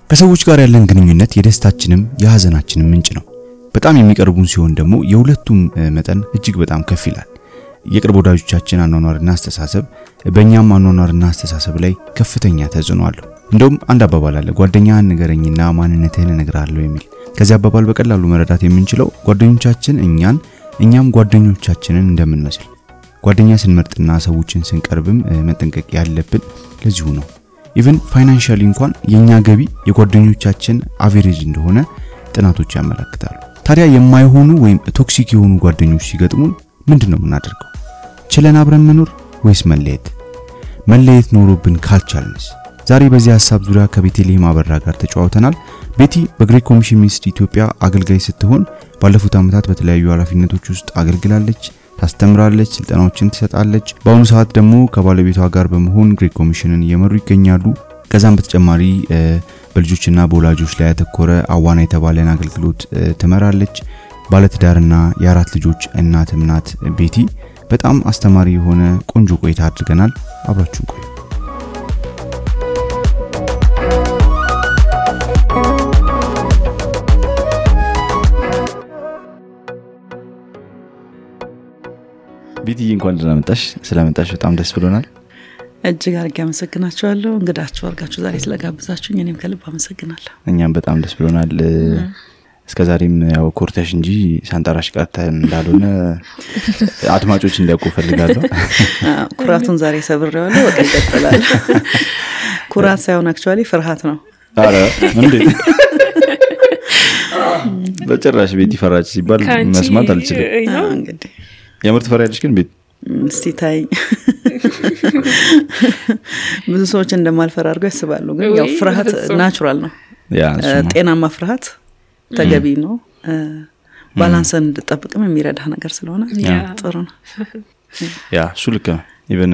ከሰዎች ጋር ያለን ግንኙነት የደስታችንም የሐዘናችንም ምንጭ ነው። በጣም የሚቀርቡን ሲሆን ደግሞ የሁለቱም መጠን እጅግ በጣም ከፍ ይላል። የቅርብ ወዳጆቻችን አኗኗርና አስተሳሰብ በእኛም አኗኗርና አስተሳሰብ ላይ ከፍተኛ ተጽዕኖ አለው። እንደውም አንድ አባባል አለ፣ ጓደኛህን ንገረኝና ማንነትህን እነግርሃለሁ የሚል። ከዚህ አባባል በቀላሉ መረዳት የምንችለው ጓደኞቻችን እኛም ጓደኞቻችንን እንደምንመስል። ጓደኛ ስንመርጥና ሰዎችን ስንቀርብም መጠንቀቅ ያለብን ለዚሁ ነው። ኢቭን ፋይናንሻሊ እንኳን የኛ ገቢ የጓደኞቻችን አቨሬጅ እንደሆነ ጥናቶች ያመለክታሉ። ታዲያ የማይሆኑ ወይም ቶክሲክ የሆኑ ጓደኞች ሲገጥሙን ምንድነው የምናደርገው? ችለን አብረን መኖር ወይስ መለየት ኖሮብን ካልቻልንስ? ዛሬ በዚህ ሐሳብ ዙሪያ ከቤቴልሔም አበራ ጋር ተጫውተናል። ቤቲ በግሬት ኮሚሽን ሚኒስትሪ ኢትዮጵያ አገልጋይ ስትሆን ባለፉት ዓመታት በተለያዩ ኃላፊነቶች ውስጥ አገልግላለች፣ ታስተምራለች፣ ስልጠናዎችን ትሰጣለች። በአሁኑ ሰዓት ደግሞ ከባለቤቷ ጋር በመሆን ግሬት ኮሚሽንን እየመሩ ይገኛሉ። ከዛም በተጨማሪ በልጆችና በወላጆች ላይ ያተኮረ አዋና የተባለን አገልግሎት ትመራለች። ባለትዳርና የአራት ልጆች እናትም ናት ቤቲ። በጣም አስተማሪ የሆነ ቆንጆ ቆይታ አድርገናል። አብራችሁን ቆዩ። ቤቲ እንኳን ደህና መጣሽ። ስለመጣሽ በጣም ደስ ብሎናል። እጅግ አድርጌ አመሰግናችኋለሁ። እንግዳችሁ አድርጋችሁ ዛሬ ስለጋበዛችሁኝ እኔም ከልብ አመሰግናለሁ። እኛም በጣም ደስ ብሎናል። እስከዛሬም ያው ኮርተሽ እንጂ ሳንጠራሽ ቀርተን እንዳልሆነ አድማጮች እንዲያውቁ ፈልጋለሁ። ኩራቱን ዛሬ ሰብሬዋለሁ። በቃ ይቀጥላል። ኩራት ሳይሆን አክቹአሊ ፍርሃት ነው። አረ እንዴ! በጭራሽ ቤቲ ፈራች ሲባል መስማት አልችልም። እንግዲህ የምርት ፈራያለሽ ግን ቤት እስቲ ታይ። ብዙ ሰዎች እንደማልፈራ አድርገው ያስባሉ፣ ግን ያው ፍርሃት ናቹራል ነው። ጤናማ ፍርሃት ተገቢ ነው። ባላንስን እንድጠብቅም የሚረዳ ነገር ስለሆነ ጥሩ ነው። እሱ ልክ ነው። ኢቨን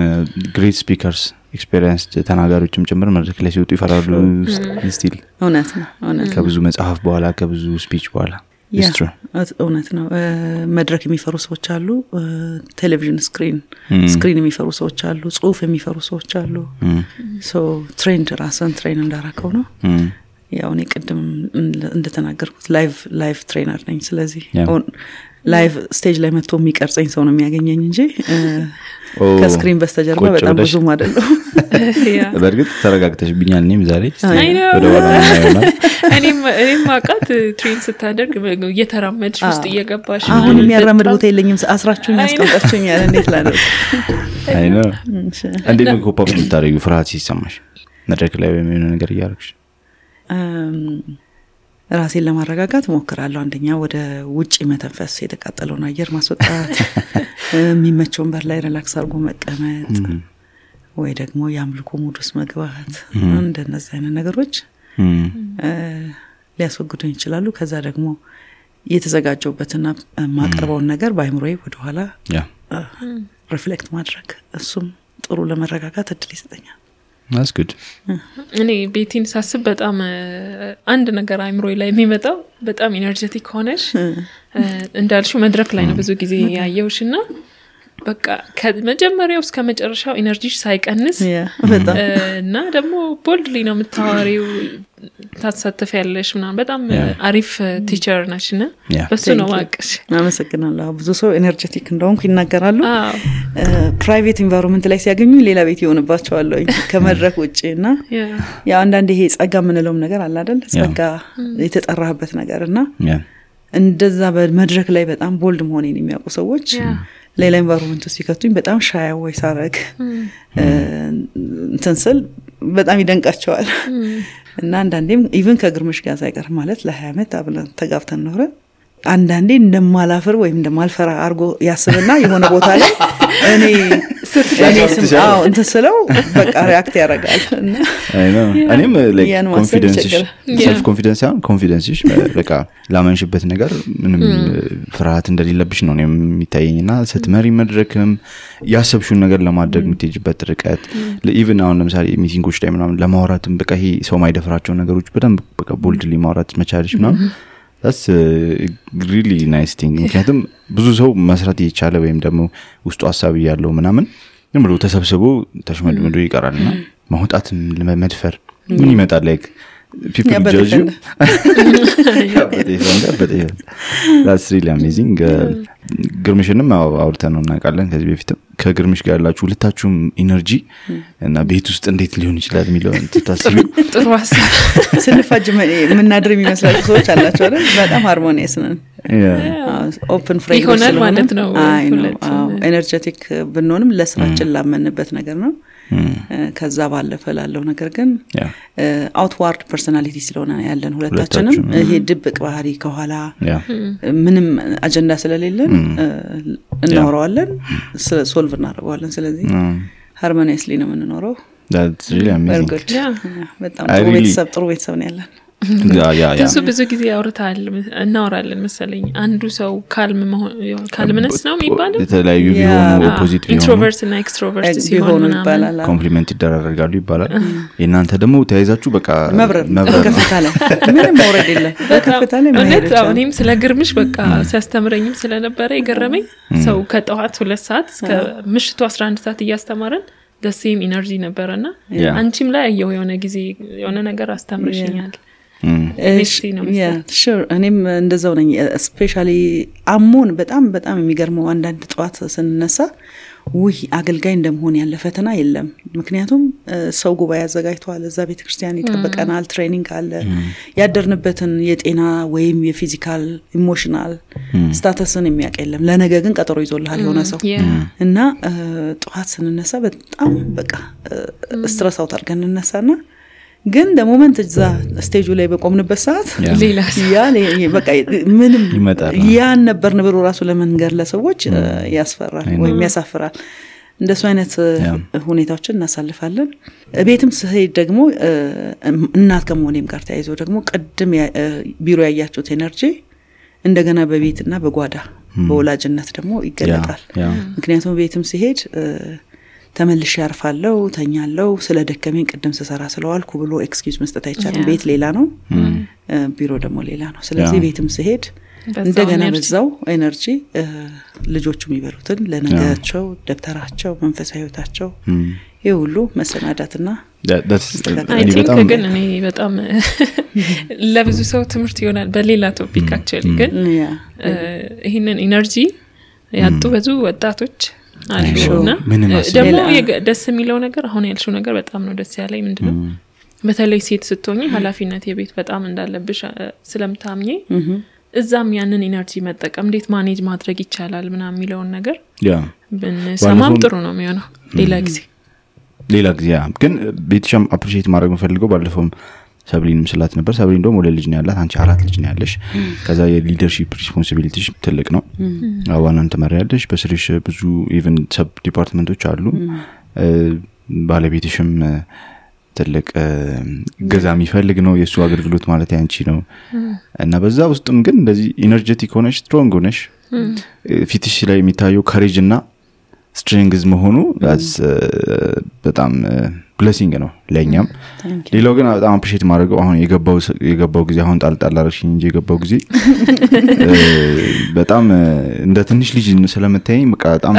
ግሬት ስፒከርስ ኤክስፒሪየንስ ተናጋሪዎችም ጭምር መድረክ ላይ ሲወጡ ይፈራሉ ስቲል። እውነት ነው። ከብዙ መጽሐፍ በኋላ ከብዙ ስፒች በኋላ እውነት ነው። መድረክ የሚፈሩ ሰዎች አሉ፣ ቴሌቪዥን ስክሪን የሚፈሩ ሰዎች አሉ፣ ጽሁፍ የሚፈሩ ሰዎች አሉ። ትሬንድ ራስን ትሬን እንዳራከው ነው። ያው እኔ ቅድም እንደተናገርኩት ላይቭ ትሬነር ነኝ። ስለዚህ ላይቭ ስቴጅ ላይ መጥቶ የሚቀርጸኝ ሰው ነው የሚያገኘኝ እንጂ ከስክሪን በስተጀርባ በጣም ብዙ አይደለም። በርግጥ ተረጋግተሽብኛል። እኔም ዛሬ ወደ ዋና ነው እኔም ማቃት ትሬን ስታደርግ እየተራመድሽ ውስጥ እየገባሽ አሁን የሚያራምድ ቦታ የለኝም። አስራችሁኝ ያስቀምጣችሁኛል። እንዴት ላደርግ? አይ ነው እንዴት ነው ኮፓፕ ልታረጊው ፍርሃት ሲሰማሽ መድረክ ላይ ወይም የሆነ ነገር እያደረግሽ? ራሴን ለማረጋጋት ሞክራለሁ። አንደኛ ወደ ውጪ መተንፈስ፣ የተቃጠለውን አየር ማስወጣት፣ የሚመቸውን በር ላይ ሪላክስ አድርጎ መቀመጥ፣ ወይ ደግሞ የአምልኮ ሙድ ውስጥ መግባት። እንደነዚህ አይነት ነገሮች ሊያስወግዱኝ ይችላሉ። ከዛ ደግሞ የተዘጋጀውበትና ማቀርበውን ነገር በአይምሮዬ ወደ ኋላ ሪፍሌክት ማድረግ፣ እሱም ጥሩ ለመረጋጋት እድል ይሰጠኛል። That's good. እኔ ቤቲን ሳስብ በጣም አንድ ነገር አይምሮዬ ላይ የሚመጣው በጣም ኢነርጂቲክ ሆነሽ እንዳልሽው መድረክ ላይ ነው ብዙ ጊዜ ያየውሽና በቃ ከመጀመሪያው እስከ መጨረሻው ኢነርጂሽ ሳይቀንስ እና ደግሞ ቦልድሊ ነው የምታወሪው፣ ታሳተፊያለሽ ምናምን። በጣም አሪፍ ቲቸር ነሽና በሱ ነው ማቀሽ። አመሰግናለሁ። ብዙ ሰው ኢነርጂቲክ እንደሆንኩ ይናገራሉ። ፕራይቬት ኢንቫይሮንመንት ላይ ሲያገኙ ሌላ ቤት ይሆንባቸዋል ከመድረክ ውጪና ያው አንዳንዴ ይሄ ጸጋ ምንለውም ነገር አለ አይደል? ጸጋ የተጠራህበት ነገርና እንደዛ በመድረክ ላይ በጣም ቦልድ መሆኔን የሚያውቁ ሰዎች ሌላ ኢንቫይሮንመንት ውስጥ ሲከቱኝ በጣም ሻይ ወይ ሳረግ እንተንሰል በጣም ይደንቃቸዋል። እና አንዳንዴም ኢቭን ከግርምሽ ጋር ሳይቀር ማለት ለ20 አመት አብለን ተጋብተን ኖረ አንዳንዴ እንደማላፈር ወይም እንደማልፈራ አርጎ ያስብና የሆነ ቦታ ላይ እኔ ስምአው እንተሰለው በቃ ሪአክት ያደርጋል። እና እኔም ላይክ ሰልፍ ኮንፊደንስሽ በቃ ላመንሽበት ነገር ምንም ፍርሃት እንደሌለብሽ ነው የሚታየኝና ስትመሪ መድረክም ያሰብሽውን ነገር ለማድረግ የምትሄጂበት ርቀት ኢቭን አሁን ለምሳሌ ሚቲንጎች ላይ ምናምን ለማውራትም በቃ ይሄ ሰው ማይደፍራቸው ነገሮች በደንብ በቃ ቦልድሊ ማውራት መቻልሽ ምናምን that's really nice thing። ምክንያቱም ብዙ ሰው መስራት እየቻለ ወይም ደግሞ ውስጡ ሐሳብ ያለው ምናምን ዝም ብሎ ተሰብስቦ ተሽመድምዶ ይቀራልና ማውጣት ለመድፈር ምን ይመጣል? ላይክ people judge you but that's really amazing ግርምሽንም አውርተን ነው እናውቃለን ከዚህ በፊት ከግርምሽ ጋር ያላችሁ ሁለታችሁም ኢነርጂ እና ቤት ውስጥ እንዴት ሊሆን ይችላል የሚለው ተታስቢ ጥሩ ሀሳብ ስንፋጅ ምናድር የሚመስላችሁ ሰዎች አላችሁ አይደል በጣም ሃርሞኒየስ ነን ኦፕን ፍሬም ይሆናል ማለት ነው ኤነርጄቲክ ብንሆንም ለስራችን ላመንበት ነገር ነው ከዛ ባለፈ ላለው ነገር ግን አውትዋርድ ፐርሰናሊቲ ስለሆነ ያለን ሁለታችንም ይሄ ድብቅ ባህሪ ከኋላ ምንም አጀንዳ ስለሌለን እናወራዋለን ሶልቭ እናደርገዋለን ስለዚህ ሃርሞኒየስሊ ነው የምንኖረው that's really amazing በጣም ጥሩ ቤተሰብ ነው ያለን ብዙ ጊዜ ያወርታል እናወራለን መሰለኝ አንዱ ሰው ካልምነስ ነው የሚባለው የተለያዩ ቢሆኑ ኦፖዚት ኢንትሮቨርት እና ኤክስትሮቨርት ሲሆኑ ይባላል ኮምፕሊመንት ይደራረጋሉ ይባላል የናንተ ደግሞ ተያይዛችሁ በቃ መብረር ከፍታለ ምንም ወረድ የለም ከፍታለ ማለት እኔም ስለ ግርምሽ በቃ ሲያስተምረኝም ስለነበረ ይገረመኝ ሰው ከጠዋት 2 ሰዓት እስከ ምሽቱ 11 ሰዓት እያስተማረን the same energy ነበርና አንቺም ላይ ያየው የሆነ ጊዜ የሆነ ነገር አስተምርሽኛል sure እኔም እንደዛው ነኝ ስፔሻሊ አሞን በጣም የሚገርመው አንዳንድ ጧት ስንነሳ አገልጋይ እንደመሆን ያለ ፈተና የለም ምክንያቱም ሰው ጉባኤ ያዘጋጅቷል እዛ ቤተክርስቲያን ይጠበቀናል ትሬኒንግ አለ ያደርንበትን የጤና ወይም የፊዚካል ኢሞሽናል ስታተስን የሚያቀለም ለነገ ግን ቀጠሮ ይዞልሃል የሆነ ሰው እና ጧት ስንነሳ በጣም በቃ ስትረስ አውት አድርገን እንነሳና ግን ለሞመንት እዛ ስቴጁ ላይ በቆምንበት ሰዓት ያ በቃ ምንም ያን ነበር ንብሩ ራሱ ለመንገር ለሰዎች ያስፈራል ወይም ያሳፍራል እንደሱ አይነት ሁኔታዎችን እናሳልፋለን ቤትም ስሄድ ደግሞ እናት ከመሆኔም ጋር ተያይዞ ደግሞ ቀድም ቢሮ ያያችሁት ኤነርጂ እንደገና በቤትና በጓዳ በወላጅነት ደግሞ ይገለጣል ምክንያቱም ቤትም ሲሄድ ተመልሼ ያርፋለሁ ተኛለሁ ስለደከመኝ ቀደም ሰሰራ ስለዋልኩ ብሎ ኤክስኪውዝ መስጠት አይቻልም ቤት ሌላ ነው ቢሮ ደግሞ ሌላ ነው ስለዚህ ቤትም ሲሄድ እንደገና በዛው ኤነርጂ ልጆቹም ይበሉትን ለነገራቸው ደብተራቸው መንፈሳዊ ህይወታቸው ይሁሉ መሰናዳትና I think ግን እኔ በጣም ለብዙ ሰው ትምህርት ይሆናል በሌላ ቶፒክ actually ግን ይሄንን ኤነርጂ ያጡ ብዙ ወጣቶች አሉና ደግሞ ደስ የሚለው ነገር አሁን ያልሽው ነገር በጣም ነው ደስ ያለኝ ምንድነው በተለይ ሴት ስትሆኚ ኃላፊነት የቤት በጣም እንዳለብሽ ስለምታምኚ እዛም ያንን ኢነርጂ መጠቀም እንዴት ማኔጅ ማድረግ ይቻላል ምናምን የሚለውን ነገር በሰማም ጥሩ ነው የሚሆነው ሌላ ጊዜ ግን ቤትሽም አፕሪሺየት ማድረግ መፈልገው ባለፈው ሰብሊንም ስላት ነበር ሰብሊን ደግሞ ወለ ልጅ ነው ያላት አንቺ 4 ልጅ ነው ያለሽ ከዛ የሊደርሺፕ ሪስፖንሲቢሊቲሽ ትልቅ ነው አዋናን ተመሪያለሽ በስሪሽ ብዙ ኢቭን ሰብ ዲፓርትመንቶች አሉ ባለቤትሽም ትልቅ ገዛም ይፈልግ ነው የሱ አገልግሎት ማለት ያንቺ ነው እና በዛ ውስጥም ግን እንደዚህ ኢነርጄቲክ ሆነሽ ስትሮንግ ሆነሽ ፊትሽ ላይ የሚታየው ካሬጅ እና ስትሬንግዝ መሆኑ በጣም ብሌሲንግ ነው ለኛም ሌላው ግን በጣም አፕሪሺየት ማድረገው አሁን የገባው ጊዜ አሁን ጣልጣል አርሽኝ እንጂ የገባው ጊዜ በጣም እንደ ትንሽ ልጅ ስለመታየኝ በቃ በጣም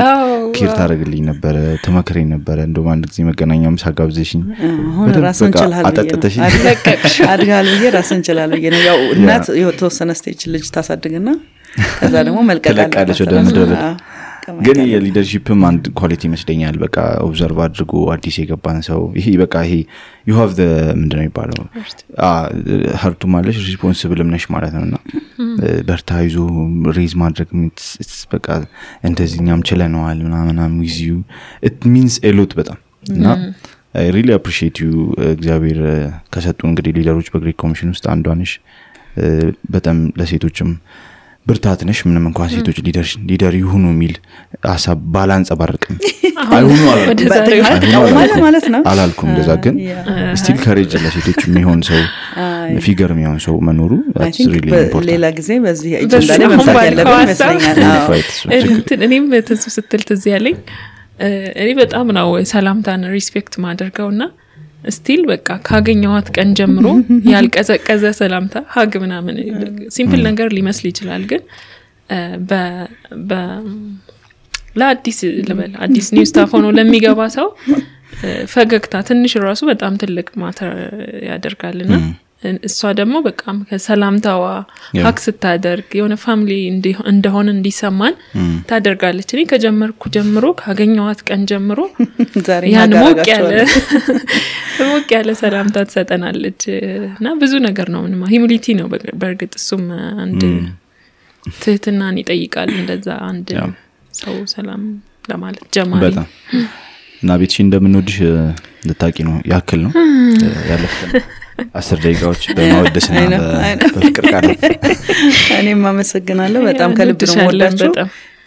ኬር ታደርግልኝ ነበር ተመከረኝ ነበር እንደውም አንድ ጊዜ መገናኛም ሳጋብዘሽኝ አሁን ራስን ችላልኝ አድጋል ብዬ ራስን ችላልኝ ነው ያው እናት የተወሰነ ስቴጅ ልጅ ታሳድግና ከዛ ደግሞ መልቀቅ አለበት ግን የሊደርሺፕም አንድ ኳሊቲ መስደኛል በቃ ኦብዘርቭ አድርጎ አዲስ የገባን ሰው ይሄ በቃ ይሄ you have the ምንድነው የሚባለው ሀርቱ ማለት ሪስፖንሲብል ነሽ ማለት ነውና በርታይዞ ሬዝ ማድረግ በቃ እንደዚህኛም ችለናል ምናምን with you it means a lot በጣም እና I really appreciate you እግዚአብሔር ከሰጡ እንግዲህ ሊደሮች በግሬት ኮሚሽን ውስጥ አንዷ ነሽ በጣም ለሴቶችም ብርታት ነሽ ምንም እንኳን ሴቶች ሊደር ይሁኑ የሚል ሐሳብ ባላንስ አባርቅም አይሁኑ ማለት ነው አላልኩም እንደዛ ግን ስቲል ካሬጅ ለሴቶች የሚሆን ሰው ፊገር የሚሆን ሰው መኖሩ that's really important ሌላ ጊዜ በዚህ አጀንዳ ላይ መምጣት ያለበት ይመስለኛል እኔም ተሱ ስትል ትዝ ያለኝ እኔ በጣም ነው ሰላምታን ሪስፔክት ማድረግውና ስቲል በቃ ካገኘዋት ቀን ጀምሮ ያልቀዘቀዘ ሰላምታ ሀግ ምናምን ሲምፕል ነገር ሊመስል ይችላል ግን ለአዲስ ለበል አዲስ ኒው ስታፍ ሆኖ ለሚገባ ሰው ፈገግታ ትንሽ ራሱ በጣም ትልቅ ማተር ያደርጋልና እሷ ደግሞ በቃ ከሰላምታዋ ሀክ ስታደርግ የሆነ ፋሚሊ እንደሆነ እንዲሰማን ታደርጋለች። እኔ ከጀመርኩ ጀምሮ ካገኘዋት ቀን ጀምሮ ያን ሞቅ ያለ ሰላምታ ትሰጠናለች እና ብዙ ነገር ነው ምንም ሂዩሚሊቲ ነው በርግጥ እሱም አንድ ትህትናን ይጠይቃል እንደዛ አንድ ሰው ሰላም ለማለት ጀማሪ በጣም እና ቤትሽ እንደምንወድሽ ልታቂ ነው ያክል ነው ያለፈን 10 ደቂቃዎች በማወደስና በፍቅር ቃል እኔም አመሰግናለሁ በጣም ከልብ ነው ወዳችሁ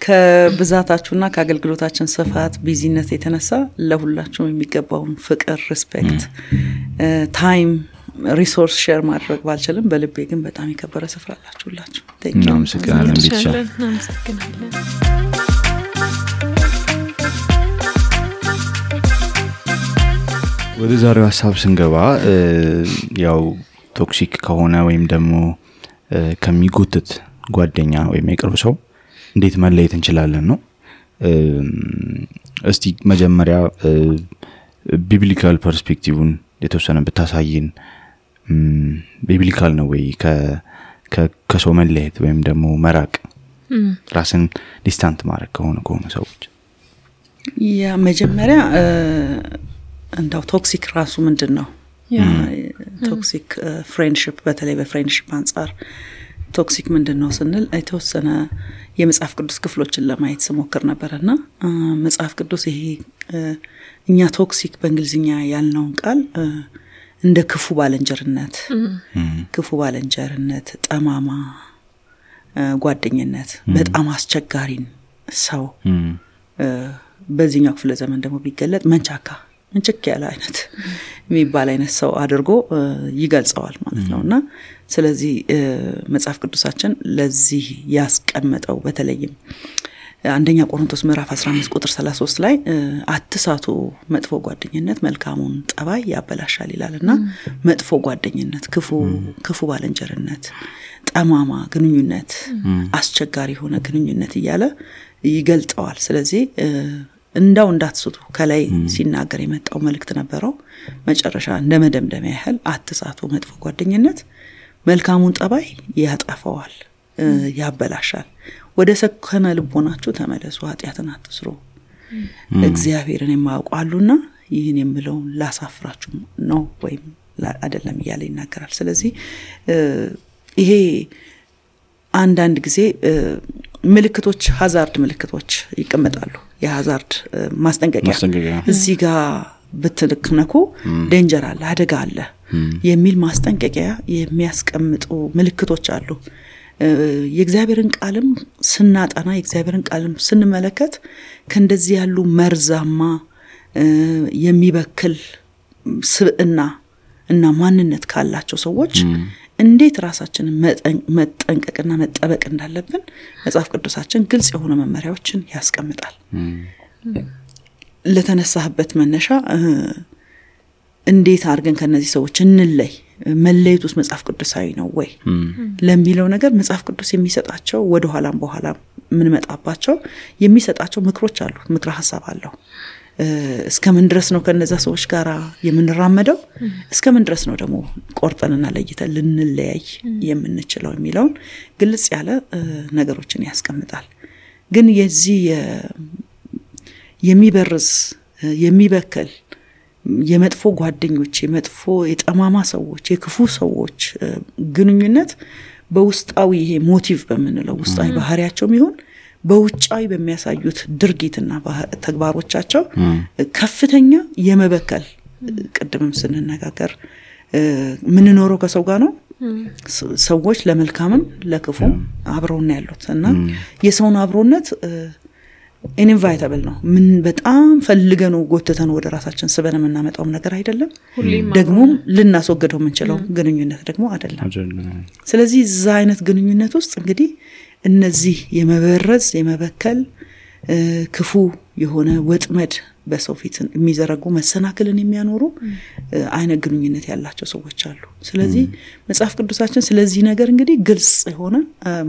ከብዛታችሁና ከአገልግሎታችን ስፋት ቢዚነስ የተነሳ ለሁላችሁም የሚገባውን ፍቅር ሪስፔክት ታይም ሪሶርስ ሼር ማድረግ ባልችልም በልቤ ግን በጣም የከበረ ስፍራ አላችሁላችሁ እናመሰግናለን ቤትሽ እናመሰግናለን ወደ ዛሬው ሐሳብ ስንገባ ያው ቶክሲክ ከሆነ ወይም ደግሞ ከሚጎትት ጓደኛ ወይም የቅርብ ሰው እንዴት መለየት እንችላለን ነው እስቲ መጀመሪያ ቢብሊካል ፐርስፔክቲቭን የተወሰነ ብታሳይን ቢብሊካል ነው ወይ ከሰው መለየት ወይም ደግሞ መራቅ ራስን ዲስታንት ማድረግ ከሆነ ሰዎች ያ መጀመሪያ እንዳው ቶክሲክ ራሱ ምንድነው ቶክሲክ ፍሬንድሺፕ በተለይ በፍሬንድሺፕ አንፃር ቶክሲክ ምንድነው ስንል የተወሰነ የመጽሐፍ ቅዱስ ክፍሎችን ለማየት ስሞክር ነበርና መጽሐፍ ቅዱስ ይሄ እኛ ቶክሲክ በእንግሊዝኛ ያልነውን ቃል እንደ ክፉ ባለንጀርነት ጠማማ ጓደኝነት በጣም አስቸጋሪን ሰው በዚህኛው ክፍለ ዘመን ደግሞ ቢገለጥ መንቸክ ያለ አይነት የሚባል አይነት ሰው አድርጎ ይገልጸዋል ማለት ነውና ስለዚህ መጽሐፍ ቅዱሳችን ለዚህ ያስቀመጠው በተለይም አንደኛ ቆሮንቶስ ምዕራፍ 15 ቁጥር 33 ላይ አትሳቱ መጥፎ ጓደኝነት መልካሙን ጠባይ ያበላሻል ይላልና መጥፎ ጓደኝነት ክፉ ባለንጀርነት ጠማማ ግንኙነት አስቸጋሪ ሆነ ግንኙነት ይያለ ይገልጸዋል ስለዚህ እንዳው እንዳትስቱ ከላይ ሲናገር የመጣው መልእክት ነበረው መጨረሻ እንደመደምደሚያ ያህል አትሳቱ መጥፎ ጓደኝነት መልካሙን ጠባይ ያጠፋዋል ያበላሻል ወደ ሰከነ ልቦናችሁ ተመለሱ ኃጢያትን አትስሩ እግዚአብሔርን የማያውቁአሉና ይህን የምለው ላሳፍራችሁ ነው ወይም አይደለም ይያለ ይናገራል ስለዚህ ይሄ አንዳንድ ጊዜ ምልክቶች ሃዛርድ ምልክቶች ይቀመጣሉ የሃዛርድ ማስጠንቀቂያ እዚህ ጋር በትልክነኩ ዴንጀር አለ አደጋ አለ የሚል ማስጠንቀቂያ የሚያስቀምጡ ምልክቶች አሉ የእግዚአብሔርን ቃልም ስናጣና የእግዚአብሔርን ቃልም ስንመለከት ከእንደዚህ ያሉ መርዛማ የሚበክል ስብዕና እና ማንነት ካላቸው ሰዎች እንዴት ራሳችንን መጠንቀቅና መጠበቅ እንዳለብን መጽሐፍ ቅዱሳችን ግልጽ የሆኑ መመሪያዎችን ያስቀምጣል ለተነሳህበት መነሻ እንዴት አድርገን ከነዚህ ሰዎች እንለይ መለየቱስ መጽሐፍ ቅዱሳዊ ነው ወይ ለሚለው ነገር መጽሐፍ ቅዱስ የሚሰጣቸው ወደ ኋላም በኋላ ምን መጣባቸው የሚሰጣቸው ምክሮች አሉ ምክረ ሐሳብ አለው እስከምን ድረስ ነው ከነዛ ሰዎች ጋር የምንራመደው እስከምን ድረስ ነው ደግሞ ቆርጠንና ለይተን ልንለያይ የምንችለው የሚለውን ግልጽ ያለ ነገሮችን ያስቀምጣል ግን የዚህ የሚበርዝ የሚበከል የመጥፎ ጓደኞች የመጥፎ የጠማማ ሰዎች የክፉ ሰዎች ግንኙነት በውስጣዊ ይሄ ሞቲቭ በመንለው ውስጣዊ ባህሪያቸው ይሁን በውጫዊ በሚያሳዩት ድርጊትና ተግባሮቻቸው ከፍተኛ የመበከል ቅድምም ስንነጋገር ምን ኖሮ ከሰው ጋር ነው ሰዎች ለመልካምም ለክፉም አብረውና ያሉትና የሰውን አብሮነት ኢንቫይታብል ነው ምን በጣም ፈልገነው ጎተተን ወደ ራሳችን ስበን እናመጣው ነገር አይደለም ደግሞ ልናስወግደው የምንችለው ግንኙነት ደግሞ አይደለም ስለዚህ እዛ አይነት ግንኙነት ውስጥ እንግዲህ እነዚህ የመበረዝ የመበከል ክፉ የሆነ ወጥመድ በሰው ፊት የሚዘረጉ መሰናክልን የሚያኖሩ አይነት ግንኙነት ያላቸው ሰዎች አሉ። ስለዚህ መጽሐፍ ቅዱሳችን ስለዚህ ነገር እንግዲህ ግልጽ የሆነ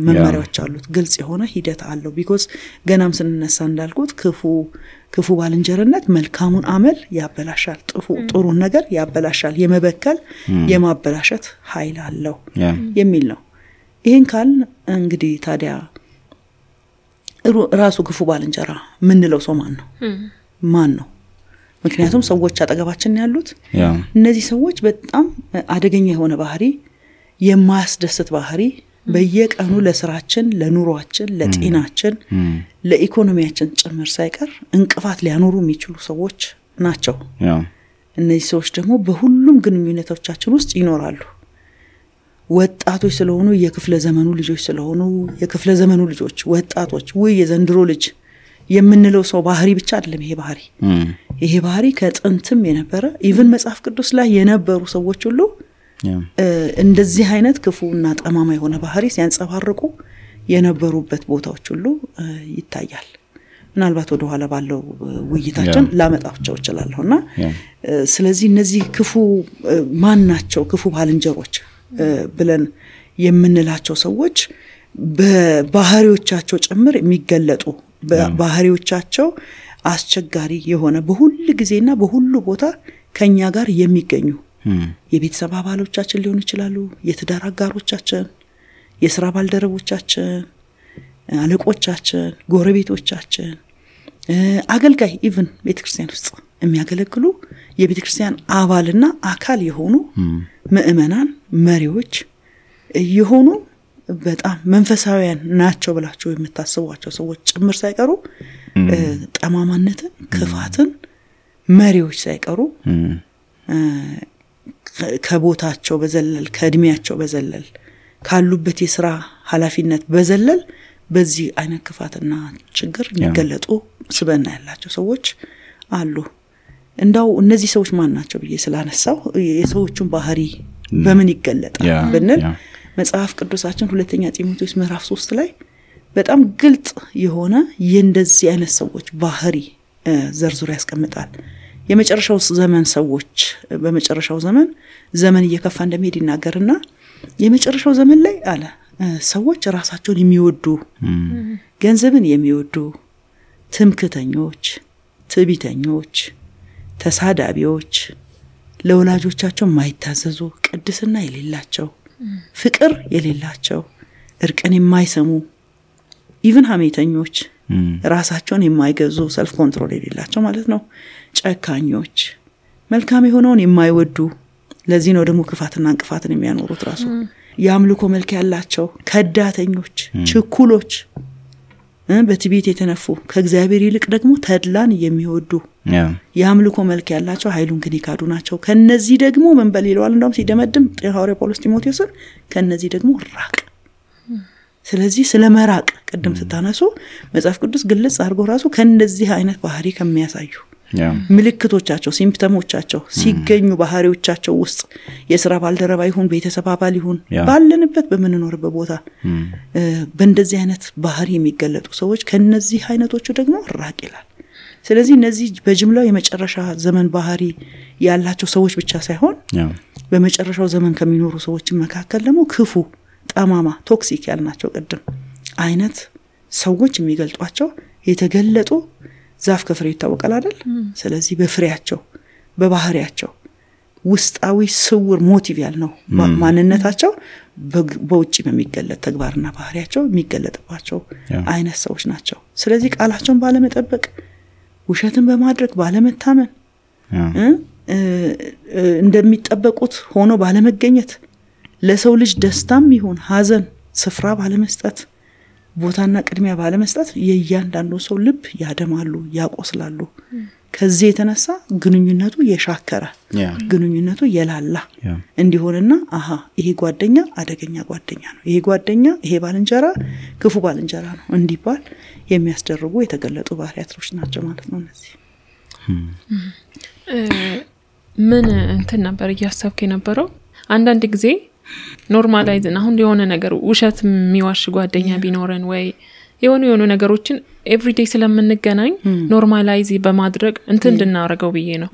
መመሪያዎች አሉት፣ ግልጽ የሆነ ሂደት አለው። ቢኮዝ ገናም ስንነሳ እንዳልኩት ክፉ ባልንጀርነት መልካሙን አመል ያበላሻል፣ ጥሩን ነገር ያበላሻል፣ የመበከል የማበላሸት ኃይል አለው የሚል ነው። ይሄን ካል እንግዲህ ታዲያ ራሱ ክፉ ባልንጀራ ምንለው ሰው ማን ነው? ምክንያቱም ሰዎች አጠገባችን ያሉት እነዚህ ሰዎች በጣም አደገኛ የሆነ ባህሪ፣ የማያስደስት ባህሪ በየቀኑ ለስራችን፣ ለኑሮአችን፣ ለጤናችን፣ ለኢኮኖሚያችን ጭምር ሳይቀር እንቅፋት ሊያኖሩ የሚችሉ ሰዎች ናቸው። እነዚህ ሰዎች ደግሞ በሁሉም ግንኙነቶቻችን ውስጥ ይኖራሉ። ወጣቶች ስለሆኑ የክፍለ ዘመኑ ልጆች ስለሆኑ የክፍለ ዘመኑ ልጆች ወጣቶች ወይ የዘንድሮ ልጅ የምንለው ሰው ባህሪ ብቻ አይደለም። ይሄ ባህሪ ከጥንትም የነበረ ኢቭን መጽሐፍ ቅዱስ ላይ የነበሩ ሰዎች ሁሉ እንደዚህ አይነት ክፉና ጠማማ የሆነ ባህሪ ሲያንጸባርቁ የነበሩበት ቦታዎች ሁሉ ይታያል። ምናልባት ወደ ኋላ ባለው ውይይታችን ላመጣቸው ይችላልውና ስለዚህ እነዚህ ክፉ ማን ናቸው? ክፉ ባልንጀሮች ብለን የምንላቸው ሰዎች በባህሪዎቻቸው ጭምር የሚገለጡ ባህሪዎቻቸው አስቸጋሪ የሆነ በሁሉ ጊዜና በሁሉ ቦታ ከኛ ጋር የሚገኙ የቤተሰብ አባሎቻችን ሊሆኑ ይችላሉ፣ የትዳር አጋሮቻችን፣ የሥራ ባልደረቦቻችን፣ አለቆቻችን፣ ጎረቤቶቻችን፣ አገልጋይ ኢቭን ቤተክርስቲያን ውስጥ የሚያገለግሉ የቤተክርስቲያን አባልና አካል የሆኑ ምእመናን መሪዎች የሆኑ በጣም መንፈሳዊያን ናቸው ብላችሁ የምታስቧቸው ሰዎች ጭምር ሳይቀሩ ጠማማነትን፣ ክፋትን መሪዎች ሳይቀሩ ከቦታቸው በዘለል ከእድሜያቸው በዘለል ካሉበት የሥራ ኃላፊነት በዘለል በዚህ አይነት ክፋትና ችግር የሚገለጡ ስብዕና ያላቸው ሰዎች አሉ። እንዳው እነዚህ ሰዎች ማን ናቸው ብዬ ስላነሳው የሰዎቹን ባህሪ በምን ይገለጣል ብንል መጽሐፍ ቅዱሳችን ሁለተኛ ጢሞቴዎስ ምዕራፍ 3 ላይ በጣም ግልጽ የሆነ የእንደዚህ አይነት ሰዎች ባህሪ ዘርዝሮ ያስቀምጣል። የመጨረሻው ዘመን ሰዎች በመጨረሻው ዘመን እየከፋ እንደሚሄድ ይናገርና የመጨረሻው ዘመን ላይ አለ ሰዎች ራሳቸውን የሚወዱ፣ ገንዘብን የሚወዱ፣ ትምክህተኞች፣ ትዕቢተኞች፣ ተሳዳቢዎች፣ ለወላጆቻቸው የማይታዘዙ፣ ቅድስና የሌላቸው፣ ፍቅር የሌላቸው፣ እርቅን የማይሰሙ፣ ኢቭን ሐሜተኞች፣ ራሳቸውን የማይገዙ፣ ሰልፍ ኮንትሮል የሌላቸው ማለት ነው፣ ጨካኞች፣ መልካም የሆነውን የማይወዱ፣ ለዚህ ነው ደግሞ ክፋትና እንቅፋትን የሚያኖሩት ራሱ የአምልኮ መልክ ያላቸው፣ ከዳተኞች፣ ችኩሎች፣ በትዕቢት የተነፉ፣ ከእግዚአብሔር ይልቅ ደግሞ ተድላን የሚወዱ የአምልኮ መልክ ያላቸው ኃይሉን ግን ይካዱ ናቸው። ከነዚህ ደግሞ ምን በሌለዋል እንደውም ሲደመድም ሐዋርያው ጳውሎስ ጢሞቴዎስን ከነዚህ ደግሞ ራቅ። ስለዚህ ስለመራቅ ቅድም ስታነሱ መጽሐፍ ቅዱስ ግልጽ አድርጎ ራሱ ከነዚህ አይነት ባህሪ ከሚያሳዩ ምልክቶቻቸው፣ ሲምፕተሞቻቸው ሲገኙ ባህሪዎቻቸው ውስጥ የሥራ ባልደረባ ይሁን ቤተሰብ አባል ይሁን ባለንበት በመንኖርበት ቦታ በእንደዚህ አይነት ባህሪ የሚገለጡ ሰዎች ከነዚህ አይነቶቹ ደግሞ ራቅ ይላል። ስለዚህ እነዚህ በጅምላው የመጨረሻ ዘመን ባህሪ ያላቸው ሰዎች ብቻ ሳይሆን በመጨረሻው ዘመን ከሚኖሩ ሰዎች መካከል ደግሞ ክፉ፣ ጠማማ፣ ቶክሲክ ያልናቸው ቅድም አይነት ሰዎች የሚገልጧቸው የተገለጡ ዛፍ ከፍሬ ይታወቃል አይደል? ስለዚህ በፍሬያቸው በባህሪያቸው ውስጣዊ ስውር ሞቲቭ ያልነው ማንነታቸው በውጪ በሚገለጥ ተግባርና ባህሪያቸው የሚገለጥባቸው አይነት ሰዎች ናቸው። ስለዚህ ቃላቸውን ባለመጠበቅ፣ ውሸትን በማድረግ ባለመታመን፣ እንደሚጠበቁት ሆኖ ባለመገኘት፣ ለሰው ልጅ ደስታም ይሁን ሐዘን ስፍራ ባለመስጠት፣ ቦታና ቅድሚያ ባለመስጠት የእያንዳንዱ ሰው ልብ ያደማሉ፣ ያቆስላሉ። ከዚህ የተነሳ ግንኙነቱ የሻከረ ግንኙነቱ የላላ እንዲሆንና ይሄ ጓደኛ አደገኛ ጓደኛ ነው፣ ይሄ ጓደኛ፣ ይሄ ባልንጀራ ክፉ ባልንጀራ ነው እንዲባል የሚያስደርጉ የተገለጡ ባህሪያቶች ናቸው ማለት ነው። እነዚህ ምን እንትን ነበር እያሰብክ የነበረው? አንዳንድ ጊዜ ኖርማላይዝን አሁን የሆነ ነገር ውሸት የሚዋሽ ጓደኛ ቢኖረን ወይ የሆኑ ነገሮችን ኤቭሪዴይ ስለምንገናኝ ኖርማላይዝ በማድረግ እንትን እንድናረጋው ብዬ ነው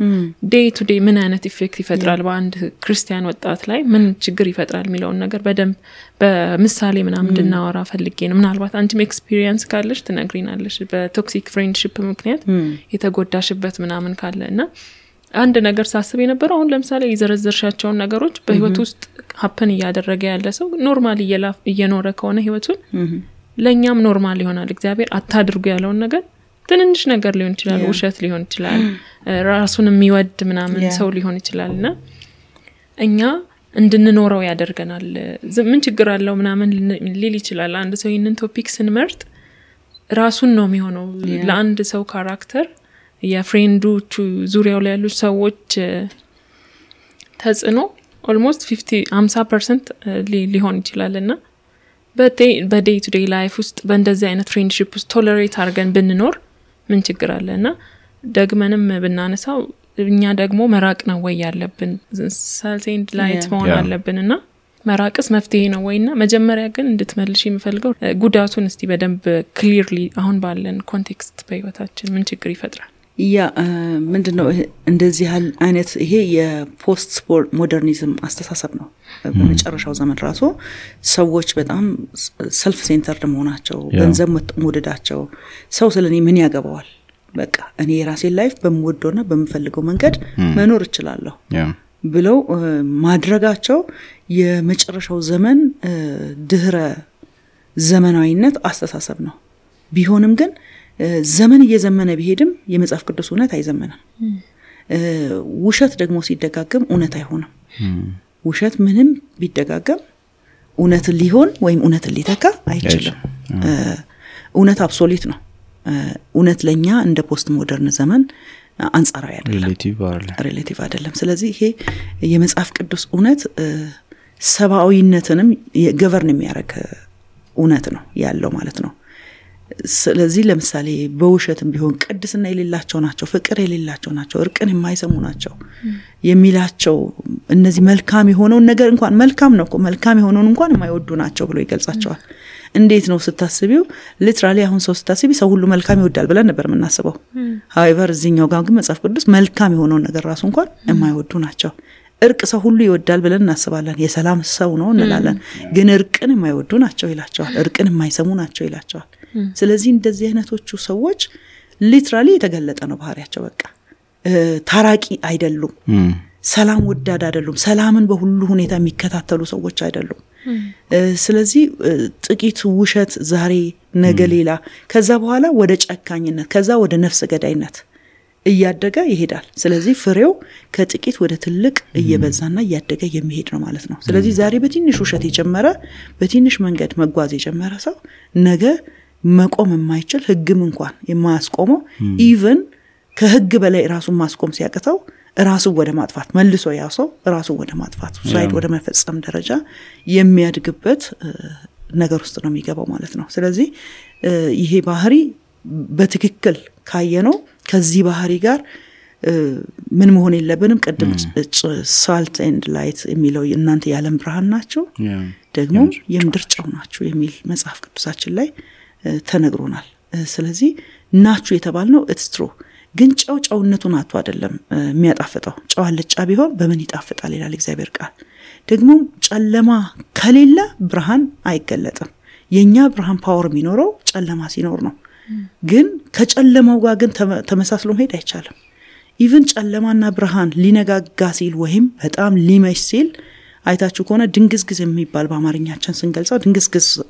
ዴይ ቱ ዴይ ምን አይነት ኢፌክት ይፈጥራል በአንድ ክርስቲያን ወጣት ላይ ምን ችግር ይፈጥራል የሚለውን ነገር በደንብ በምሳሌ ምናምን እንድናወራ ፈልጌ ነው ምናልባት አንቺም ኤክስፒሪየንስ ካለሽ ትነግሪናለሽ በቶክሲክ ፍሬንድሺፕ ምክንያት የተጎዳሽበት ምናምን ካለና አንድ ነገር ሳስብ የነበረው አሁን ለምሳሌ የዘረዘርሻቸውን ነገሮች በህይወት ውስጥ ሀፕን እያደረገ ያለ ሰው ኖርማል እየኖረ ከሆነ ህይወቱን ለኛም ኖርማል ይሆናል እግዚአብሔር አታድርጉ ያለውን ነገር ትንንሽ ነገር ሊሆን ይችላል ውሸት ሊሆን ይችላል ራሱን የሚወድ ምናምን ሰው ሊሆን ይችላልና እኛ እንድንኖረው ያደርገናል ምን ችግር አለው ምናምን ሊል ይችላል አንድ ሰው ይሄንን ቶፒክ ስንመርጥ ራሱን ነው የሚሆነው ለአንድ ሰው ካራክተር የፍሬንዶቹ ዙሪያው ላይ ያሉ ሰዎች ተጽዕኖ ኦልሞስት 50% ሊሆን ይችላልና በዴይ ቱ ዴይ ላይፍ ውስጥ በእንደዚህ አይነት ፍሬንድሺፕ ውስጥ ቶለሬት አድርገን ብንኖር ምን ችግር አለና ደግመንም ብናነሳው እኛ ደግሞ መራቅ ነው ወይ ያለብን ሳልት ኤንድ ላይት መሆን አለብንና መራቅስ መፍትሄ ነው ወይና መጀመሪያ ግን እንድትመልሽ የምፈልገው ጉዳቱን እስቲ በደንብ ክሊርሊ አሁን ባለን ኮንቴክስት በህይወታችን ምን ችግር ይፈጥራል ምንድነው እንደዚህ አይነት ይሄ የፖስት ሞደርኒዝም አስተሳሰብ ነው በመጨረሻው ዘመን ራሱ ሰዎች በጣም ሰልፍ ሴንተርድ መሆናቸው ገንዘብ መውደዳቸው ሰው ስለኔ ምን ያገባዋል በቃ እኔ የራሴን ላይፍ በመወደውና በመፈልገው መንገድ መኖር እችላለሁ ብለው ማድረጋቸው የመጨረሻው ዘመን ድህረ ዘመናዊነት አስተሳሰብ ነው ቢሆንም ግን ዘመን እየዘመነ ቢሄድም የመጽሐፍ ቅዱስ እውነት አይዘመንም ውሸት ደግሞ ሲደጋገም እውነት አይሆንም ውሸት ምንም ቢደጋገም እውነት ሊሆን ወይም እውነት ሊተካ አይችልም እውነት አብሶሉት ነው እውነት ለኛ እንደ ፖስት ሞደርን ዘመን አንጻራዊ አይደለም ሪሌቲቭ አይደለም ስለዚህ ይሄ የመጽሐፍ ቅዱስ እውነት ሰባዊነትንም ገቨርን የሚያደርግ እውነት ነው ያለው ማለት ነው ስለዚህ ለምሳሌ በውሸትም ቢሆን ቅድስና የሌላቸው ናቸው ፍቅር የሌላቸው ናቸው እርቅን የማይሰሙ ናቸው የሚላቸው እነዚህ መልካም የሆነው ነገር እንኳን መልካም ነው እኮ መልካም የሆነውን እንኳን የማይወዱ ናቸው ብሎ ይገልጻቸዋል እንዴት ነው ስታስቢው ሊትራሊ አሁን ሰው ስታስቢ ሰው ሁሉ መልካም ይወዳል ብለን ነበር የምናስበው however እዚህኛው ጋር ግን መጽሐፍ ቅዱስ መልካም የሆነው ነገር ራሱ እንኳን የማይወዱ ናቸው እርቅ ሰው ሁሉ ይወዳል ብለን እናስባለን የሰላም ሰው ነው እንላለን ግን እርቅን የማይወዱ ናቸው ይላቸዋል እርቅን የማይሰሙ ናቸው ይላቸዋል ስለዚህ እንደዚህ አይነቶቹ ሰዎች ሊትራሊ የተገለጠ ነው ባህሪያቸው በቃ ታራቂ አይደሉም ሰላም ወዳድ አይደሉም ሰላምን በሁሉ ሁኔታ የሚከታተሉ ሰዎች አይደሉም ስለዚህ ጥቂት ውሸት ዛሬ ነገ ሌላ ከዛ በኋላ ወደ ጨካኝነት ከዛ ወደ ነፍስ ገዳይነት እያደገ ይሄዳል ስለዚህ ፍሬው ከጥቂት ወደ ትልቅ እየበዛና እያደገ የሚሄድ ነው ማለት ነው ስለዚህ ዛሬ በትንሽ ውሸት የጀመረ በትንሽ መንገድ መጓዝ የጀመረ ሰው ነገ መቆም የማይችል ህግም እንኳን የማያስቆመው ኢቭን ከህግ በላይ ራሱን ማስቆም ሲያቅተው ራሱ ወደ ማጥፋት መልሶ ያሰው ራሱ ወደ ማጥፋት ሱሳይድ ወደ መፈጸም ደረጃ የሚያድግበት ነገር ውስጥ ነው የሚገባው ማለት ነው ስለዚህ ይሄ ባህሪ በትክክል ካየነው ከዚህ ባህሪ ጋር ምን መሆን የለብንም ቀድም ሳልት ኤንድ ላይት የሚለው እናንተ የዓለም ብርሃን ናችሁ ደግሞ የምድር ጨው ናችሁ የሚል መጽሐፍ ቅዱሳችን ላይ ተነግሮናል ስለዚህ ናችሁ የተባልነው ኢትስ ትሩ ግን ጨውነቱን አጥቶ አይደለም የሚያጣፍጠው ጨው አልጫ ቢሆን በምን ይጣፍጣል ይላል እግዚአብሔር ቃል ደግሞ ጨለማ ከሌለ ብርሃን አይገለጥም የኛ ብርሃን ፓወር የሚኖረው ጨለማ ሲኖር ነው ግን ከጨለማው ጋር ግን ተመሳስሎ መሄድ አይቻልም ኢቭን ጨለማና ብርሃን ሊነጋጋ ሲል ወይም በጣም ሊመሽ ሲል አይታችሁ ከሆነ ድንግዝግዝ የሚባል በአማርኛችን ስንገልጸው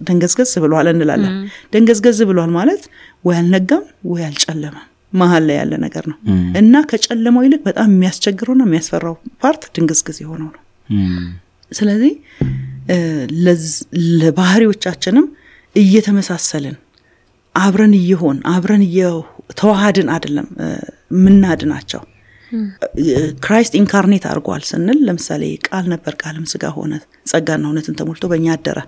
ድንግዝግዝ ብሏል እንላለን ድንግዝግዝ ብሏል ማለት ወይ አልነጋም ወይ አልጨለማም መሃል ላይ ያለ ነገር ነው እና ከጨለማው ይልቅ በጣም የሚያስቸግረውና የሚያስፈራው ፓርት ድንግዝግዝ የሆነው ነው ስለዚህ ለባህሪዎቻችንም እየተመሳሰልን አብረን ተዋሃድን አይደለም ምናድናቸው ክራይስት ኢንካርኔት አድርጓል ስንል ለምሳሌ ቃል ነበር ቃልም ስጋ ሆነ ጸጋና እውነትን ተሞልቶ በእኛ አደረ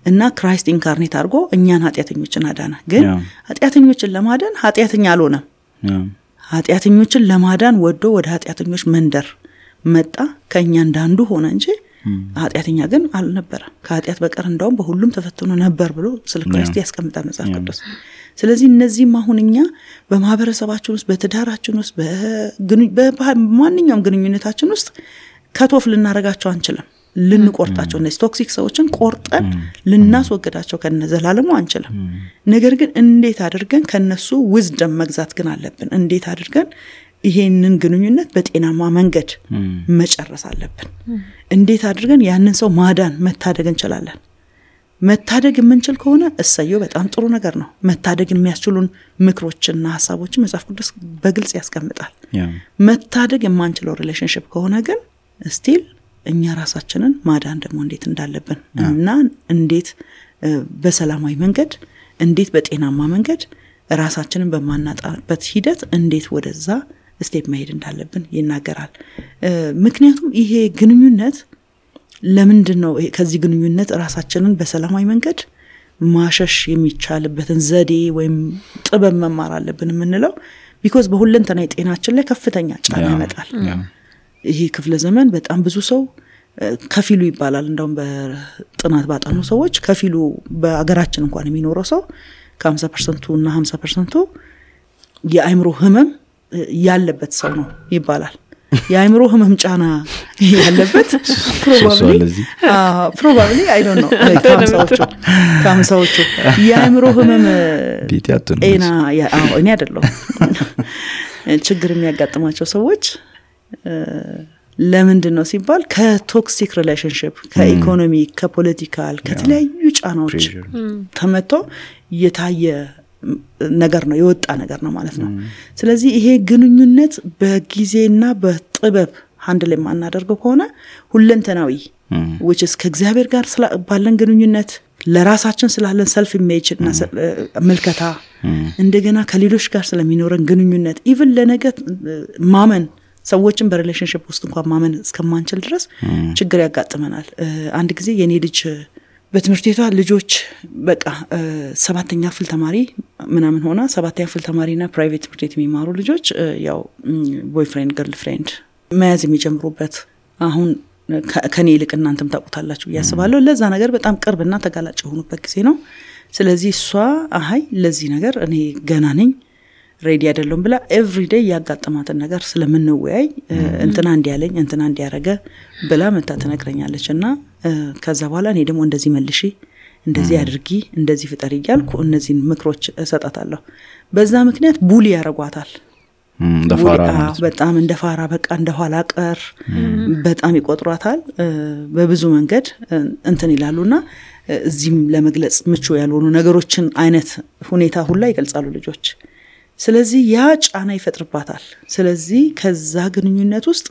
እና ክራይስት ኢንካርኔት አድርጎ እኛን ኃጢአተኞችን አዳነ ግን ኃጢአተኞችን ለማዳን ኃጢአተኛ አልሆነም ኃጢአተኞችን ለማዳን ወዶ ወደ ኃጢአተኞች መንደር መጣ ከኛ እንዳንዱ ሆነ እንጂ ኃጢአተኛ ግን አልነበረም ከኃጢአት በቀር እንደውም በሁሉም ተፈትኖ ነበር ብሎ ስለ ክርስቶስ ያስቀምጣል መጽሐፍ ቅዱስ ስለዚህ እነዚህም አሁንኛ በማህበረሰባችን ውስጥ በትዳራችን ውስጥ በማንኛውም ግንኙነታችን ውስጥ ከቶፍ ልናረጋቸው አንችልም ልንቆርጣቸው እነዚህ ቶክሲክ ሰዎችን ቆርጠን ልናስወግዳቸው ከነዘላለሙ አንችልም ነገር ግን እንዴት አድርገን ከነሱ wisdom መግዛት ግን አለብን እንዴት አድርገን ይሄንን ግንኙነት በጤናማ መንገድ መጨረስ አለብን እንዴት አድርገን ያንን ሰው ማዳን መታደግ እንችላለን መታደግ የምንችል ከሆነ እሰየው በጣም ጥሩ ነገር ነው መታደግ የሚያስችሉን ምክሮችና ሐሳቦችን መጽሐፍ ቅዱስ በግልጽ ያስቀምጣል መታደግ የማንችለው ሪሌሽንሺፕ ከሆነ ግን ስቲል እኛ ራሳችንን ማዳን ደግሞ እንዴት እንዳለብን እና እንዴት በሰላማዊ መንገድ እንዴት በጤናማ መንገድ ራሳችንን በማናጣበት ሂደት እንዴት ወደዛ ስቴፕ መሄድ እንዳለብን ይናገራል ምክንያቱም ይሄ ግንኙነት ለምንድነው ከዚህ ግንኙነት ራሳችንን በሰላማዊ መንገድ ማሸሽ የሚቻልበትን ዘዴ ወይም ጥበብ መማር አለብን የምንለው because በሁለንተናዊ ጤናችን ላይ ከፍተኛ ጫና ያመጣል ይሄ ክፍለ ዘመን በጣም ብዙ ሰው ከፊሉ ይባላል እንደውም በጥናት ባጠኑ ሰዎች ከፊሉ በአገራችን እንኳን የሚኖረው ሰው ከ50% እና 50% የአይምሮ ህመም ያለበት ሰው ነው ይባላል የአይምሮ ህመም ጫና ያለበት probably I don't know ካምሳዎቹ የአይምሮ ህመም እኔ አይደለም ችግር የሚያጋጥማቸው ሰዎች ለምንድን ነው ሲባል ከቶክሲክ ሪሌሽንሺፕ ከኢኮኖሚ ከፖለቲካል ከተለያዩ ጫናዎች ተመቶ የታየ ነገር ነው የወጣ ነገር ነው ማለት ነው ስለዚህ ይሄ ግንኙነት በጊዜና በጥበብ ሃንድል የማናደርገው ከሆነ ሁለንተናዊ which is ከእግዚአብሔር ጋር ባለን ግንኙነት ለራሳችን ስላለን self image እና መልከታ እንደገና ከሌሎች ጋር ስለሚኖረን ግንኙነት even ለነገ ማመን ሰዎችን በሪሌሽንሺፕ ውስጥ እንኳን ማመን እስከማንችል ድረስ ችግር ያጋጥመናል አንድ ጊዜ የኔ ልጅ በትምህርት ቤቷ ልጆች በቃ 7ኛ ክፍል ተማሪ ምናምን ሆና 7ኛ ክፍል ተማሪና ፕራይቬት ትምህርት ቤት የሚማሩ ልጆች ያው ቦይፍሬንድ ገርልፍሬንድ መያዝ የሚጀምሩበት አሁን ከኔ ይልቅ እናንተም ታውቁታላችሁ ያስባለሁ ለዛ ነገር በጣም ቅርብና ተጋላጭ ሆኑበት ጊዜ ነው ስለዚህ እሷ አይ ለዚህ ነገር እኔ ገና ነኝ ሬዲ አይደለም ብላ ኤቭሪዴይ ያጋጠማትን ነገር ስለምንወያይ እንትና እንዲያለኝ እንትና እንዲያረገ ብላ መታ ተነግረኛለችና ከዛ በኋላ እኔ ደግሞ እንደዚህ መልሺ እንደዚህ አድርጊ እንደዚህ ፍጠሪ ይያልኩ እነዚህን ምክሮች እሰጣታለሁ በዛ ምክንያት ቡሊ ያረጓታል በጣም እንደፋራ በቃ እንደኋላ ቀር በጣም ይቆጥሯታል በብዙ መንገድ እንትን ይላሉና እዚህም ለመግለጽ ምቹ ያልሆኑ ነገሮችን አይነት ሁኔታ ሁሉ ይገልጻሉ ልጆች ስለዚህ ያ ጫና ይፈጥርባታል ስለዚህ ከዛ ግንኙነት ውስጥ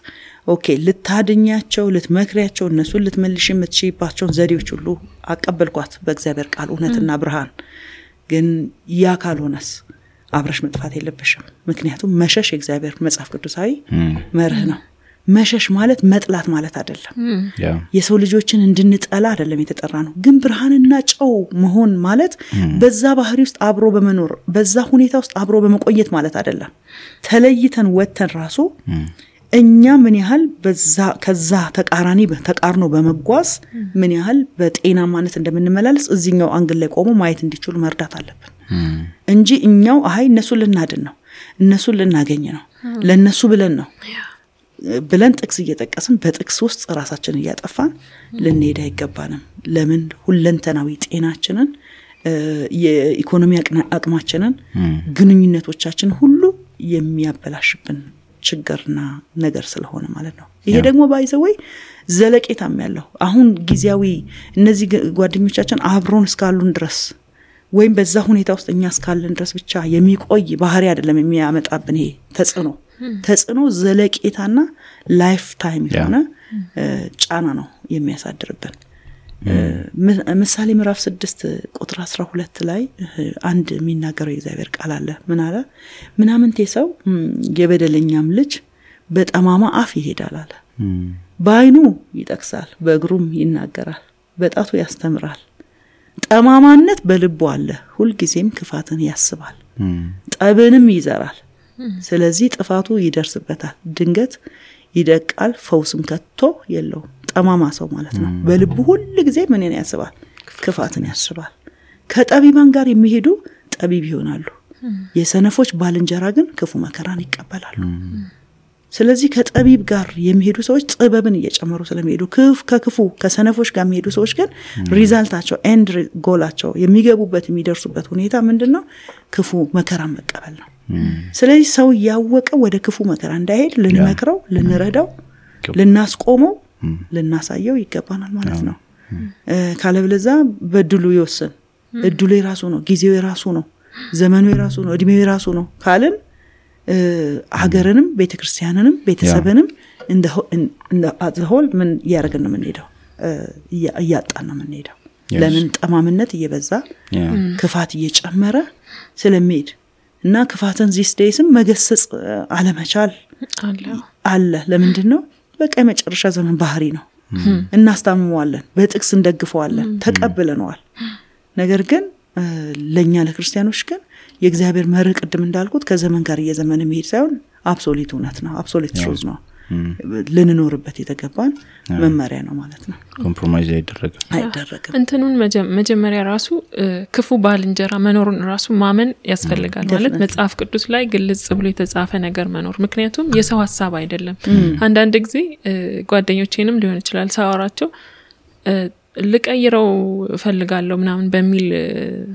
ኦኬ ልታድኛቸው ልትመክሪያቸው እነሱን ልትመልሽ የምትችይባቸው ዘዴዎች ሁሉ አቀበልኳት በእግዚአብሔር ቃል እውነትና ብርሃን ግን ያ ካልሆነስ አብረሽ መጥፋት የለብሽም ምክንያቱም መሸሽ የእግዚአብሔር መጽሐፍ ቅዱሳዊ መርህ ነው መሸሽ ማለት መጥላት ማለት አይደለም የሰው ልጆችን እንድንጠላ አይደለም የተጠራ ነው ግን ብርሃንና ጨው መሆን ማለት በዛ ባህሪ ውስጥ አብሮ በመኖር በዛ ሁኔታ ውስጥ አብሮ በመቆየት ማለት አይደለም ተለይተን ወተን ራሱ እኛ ምን ያህል በዛ ከዛ ተቃርኖ በመጓዝ ምን ያህል በጤና ማለት እንደምንመላለስ እዚህኛው አንግል ላይ ቆሞ ማየት እንዲችሉ መርዳት አለብን እንጂ እኛው እነሱን ልናድን ነው እነሱን ልናገኝ ነው ለነሱ ብለን ጥቅስ እየጠቀስን በጥቅስ ውስጥ ራሳችንን እያጠፋን ልንሄድ አይገባንም ለምን ሁለንተናዊ ጤናችንን የኢኮኖሚ አቅማችንን ግንኙነቶቻችን ሁሉ የሚያበላሽብን ችግርና ነገር ስለሆነ ማለት ነው ይሄ ደግሞ ባይዘወይ ዘለቄታም ያለው አሁን ጊዜያዊ እነዚህ ጓደኞቻችን አብሮን እስካሉን ድረስ ወይም በዛ ሁኔታ ውስጥ እኛ እስካለን ድረስ ብቻ የሚቆይ ባህሪ አይደለም የሚያመጣብን ይሄ ተጽዕኖ ዘለቄታና ላይፍ ታይም የሆነ ጫና ነው የሚያሳድርብን ምሳሌ ምዕራፍ 6 ቁጥር 12 ላይ አንድ የሚናገረው የእግዚአብሔር ቃል አለ ምን አለ ምናምንቴ ሰው የበደለኛም ልጅ በጠማማ አፍ ይሄዳል አለ በአይኑ ይጠቅሳል በእግሩም ይናገራል በጣቱ ያስተምራል ጠማማነት በልቡ አለ ሁሉ ጊዜም ክፋትን ያስባል ጠብንም ይዘራል ስለዚህ ጥፋቱ ይደርስበታል ድንገት ይደቃል ፈውስም ከቶ የለው ጠማማ ሰው ማለት ነው በልቡ ሁሉ ጊዜ ምን ያስባል ክፋትን ያስባል ከጠቢባን ጋር የሚሄዱ ጠቢብ ይሆናሉ የሰነፎች ባልንጀራ ግን ክፉ መከራን ይቀበላሉ ስለዚህ ከጠቢብ ጋር የሚሄዱ ሰዎች ጥበብን እየጨመሩ ስለሚሄዱ ከክፉ ከሰነፎች ጋር የሚሄዱ ሰዎች ግን ሪዛልታቸው ኤንድ ጎላቸው የሚገቡበት የሚደርሱበት ሁኔታ ምንድነው ክፉ መከራን መቀበል ነው ስለዚህ ሰው ያወቀ ወደ ክፉ መከራ እንዳይሄድ ልንመክረው ልንረዳው ልናስቆመው ልናሳየው ይገባናል ማለት ነው ካለበለዛ በድሉ ይወስን እድሉ የራሱ ነው ጊዜው የራሱ ነው ዘመኑ የራሱ ነው እድሜው የራሱ ነው ካልን ሀገርንም ቤተክርስቲያንንም ቤተሰብንም እንደ አዘሆል ምን ያረጋግጥ ነው የምንሄደው እያጣን ነው የምንሄደው ለምን ጠማምነት እየበዛ ክፋት እየጨመረ ስለሚሄድ እና ክፋትን ዚስ ዴይስም መገሰጽ አለመቻል አለ ለምንድነው በቃ የመጨረሻ ዘመን ባህሪ ነው እናስታምመዋለን በጥቅስ እንደግፈዋለን ተቀበለናል ነገር ግን ለኛ ለክርስቲያኖች ግን የእግዚአብሔር መርህ ቅድም እንዳልኩት ከዘመን ጋር እየዘመነ መሄድ ሳይሆን አብሶሉት እውነት ነው አብሶሉት ትሩዝ ነው ልንኖርበት የተገባን መመሪያ ነው ማለት ነው ኮምፕሮማይዝ አይደረግም እንትኑን መጀመሪያ ራሱ ክፉ ባልንጀራ መኖሩን ራሱ ማመን ያስፈልጋል ማለት መጽሐፍ ቅዱስ ላይ ግልጽ ብሎ የተጻፈ ነገር መኖር ምክንያቱም የሰው ሐሳብ አይደለም አንዳንድ ጊዜ ጓደኞቼንም ሊሆን ይችላል ሳወራቸው ልቀይረው ፈልጋለሁ ምናምን በሚል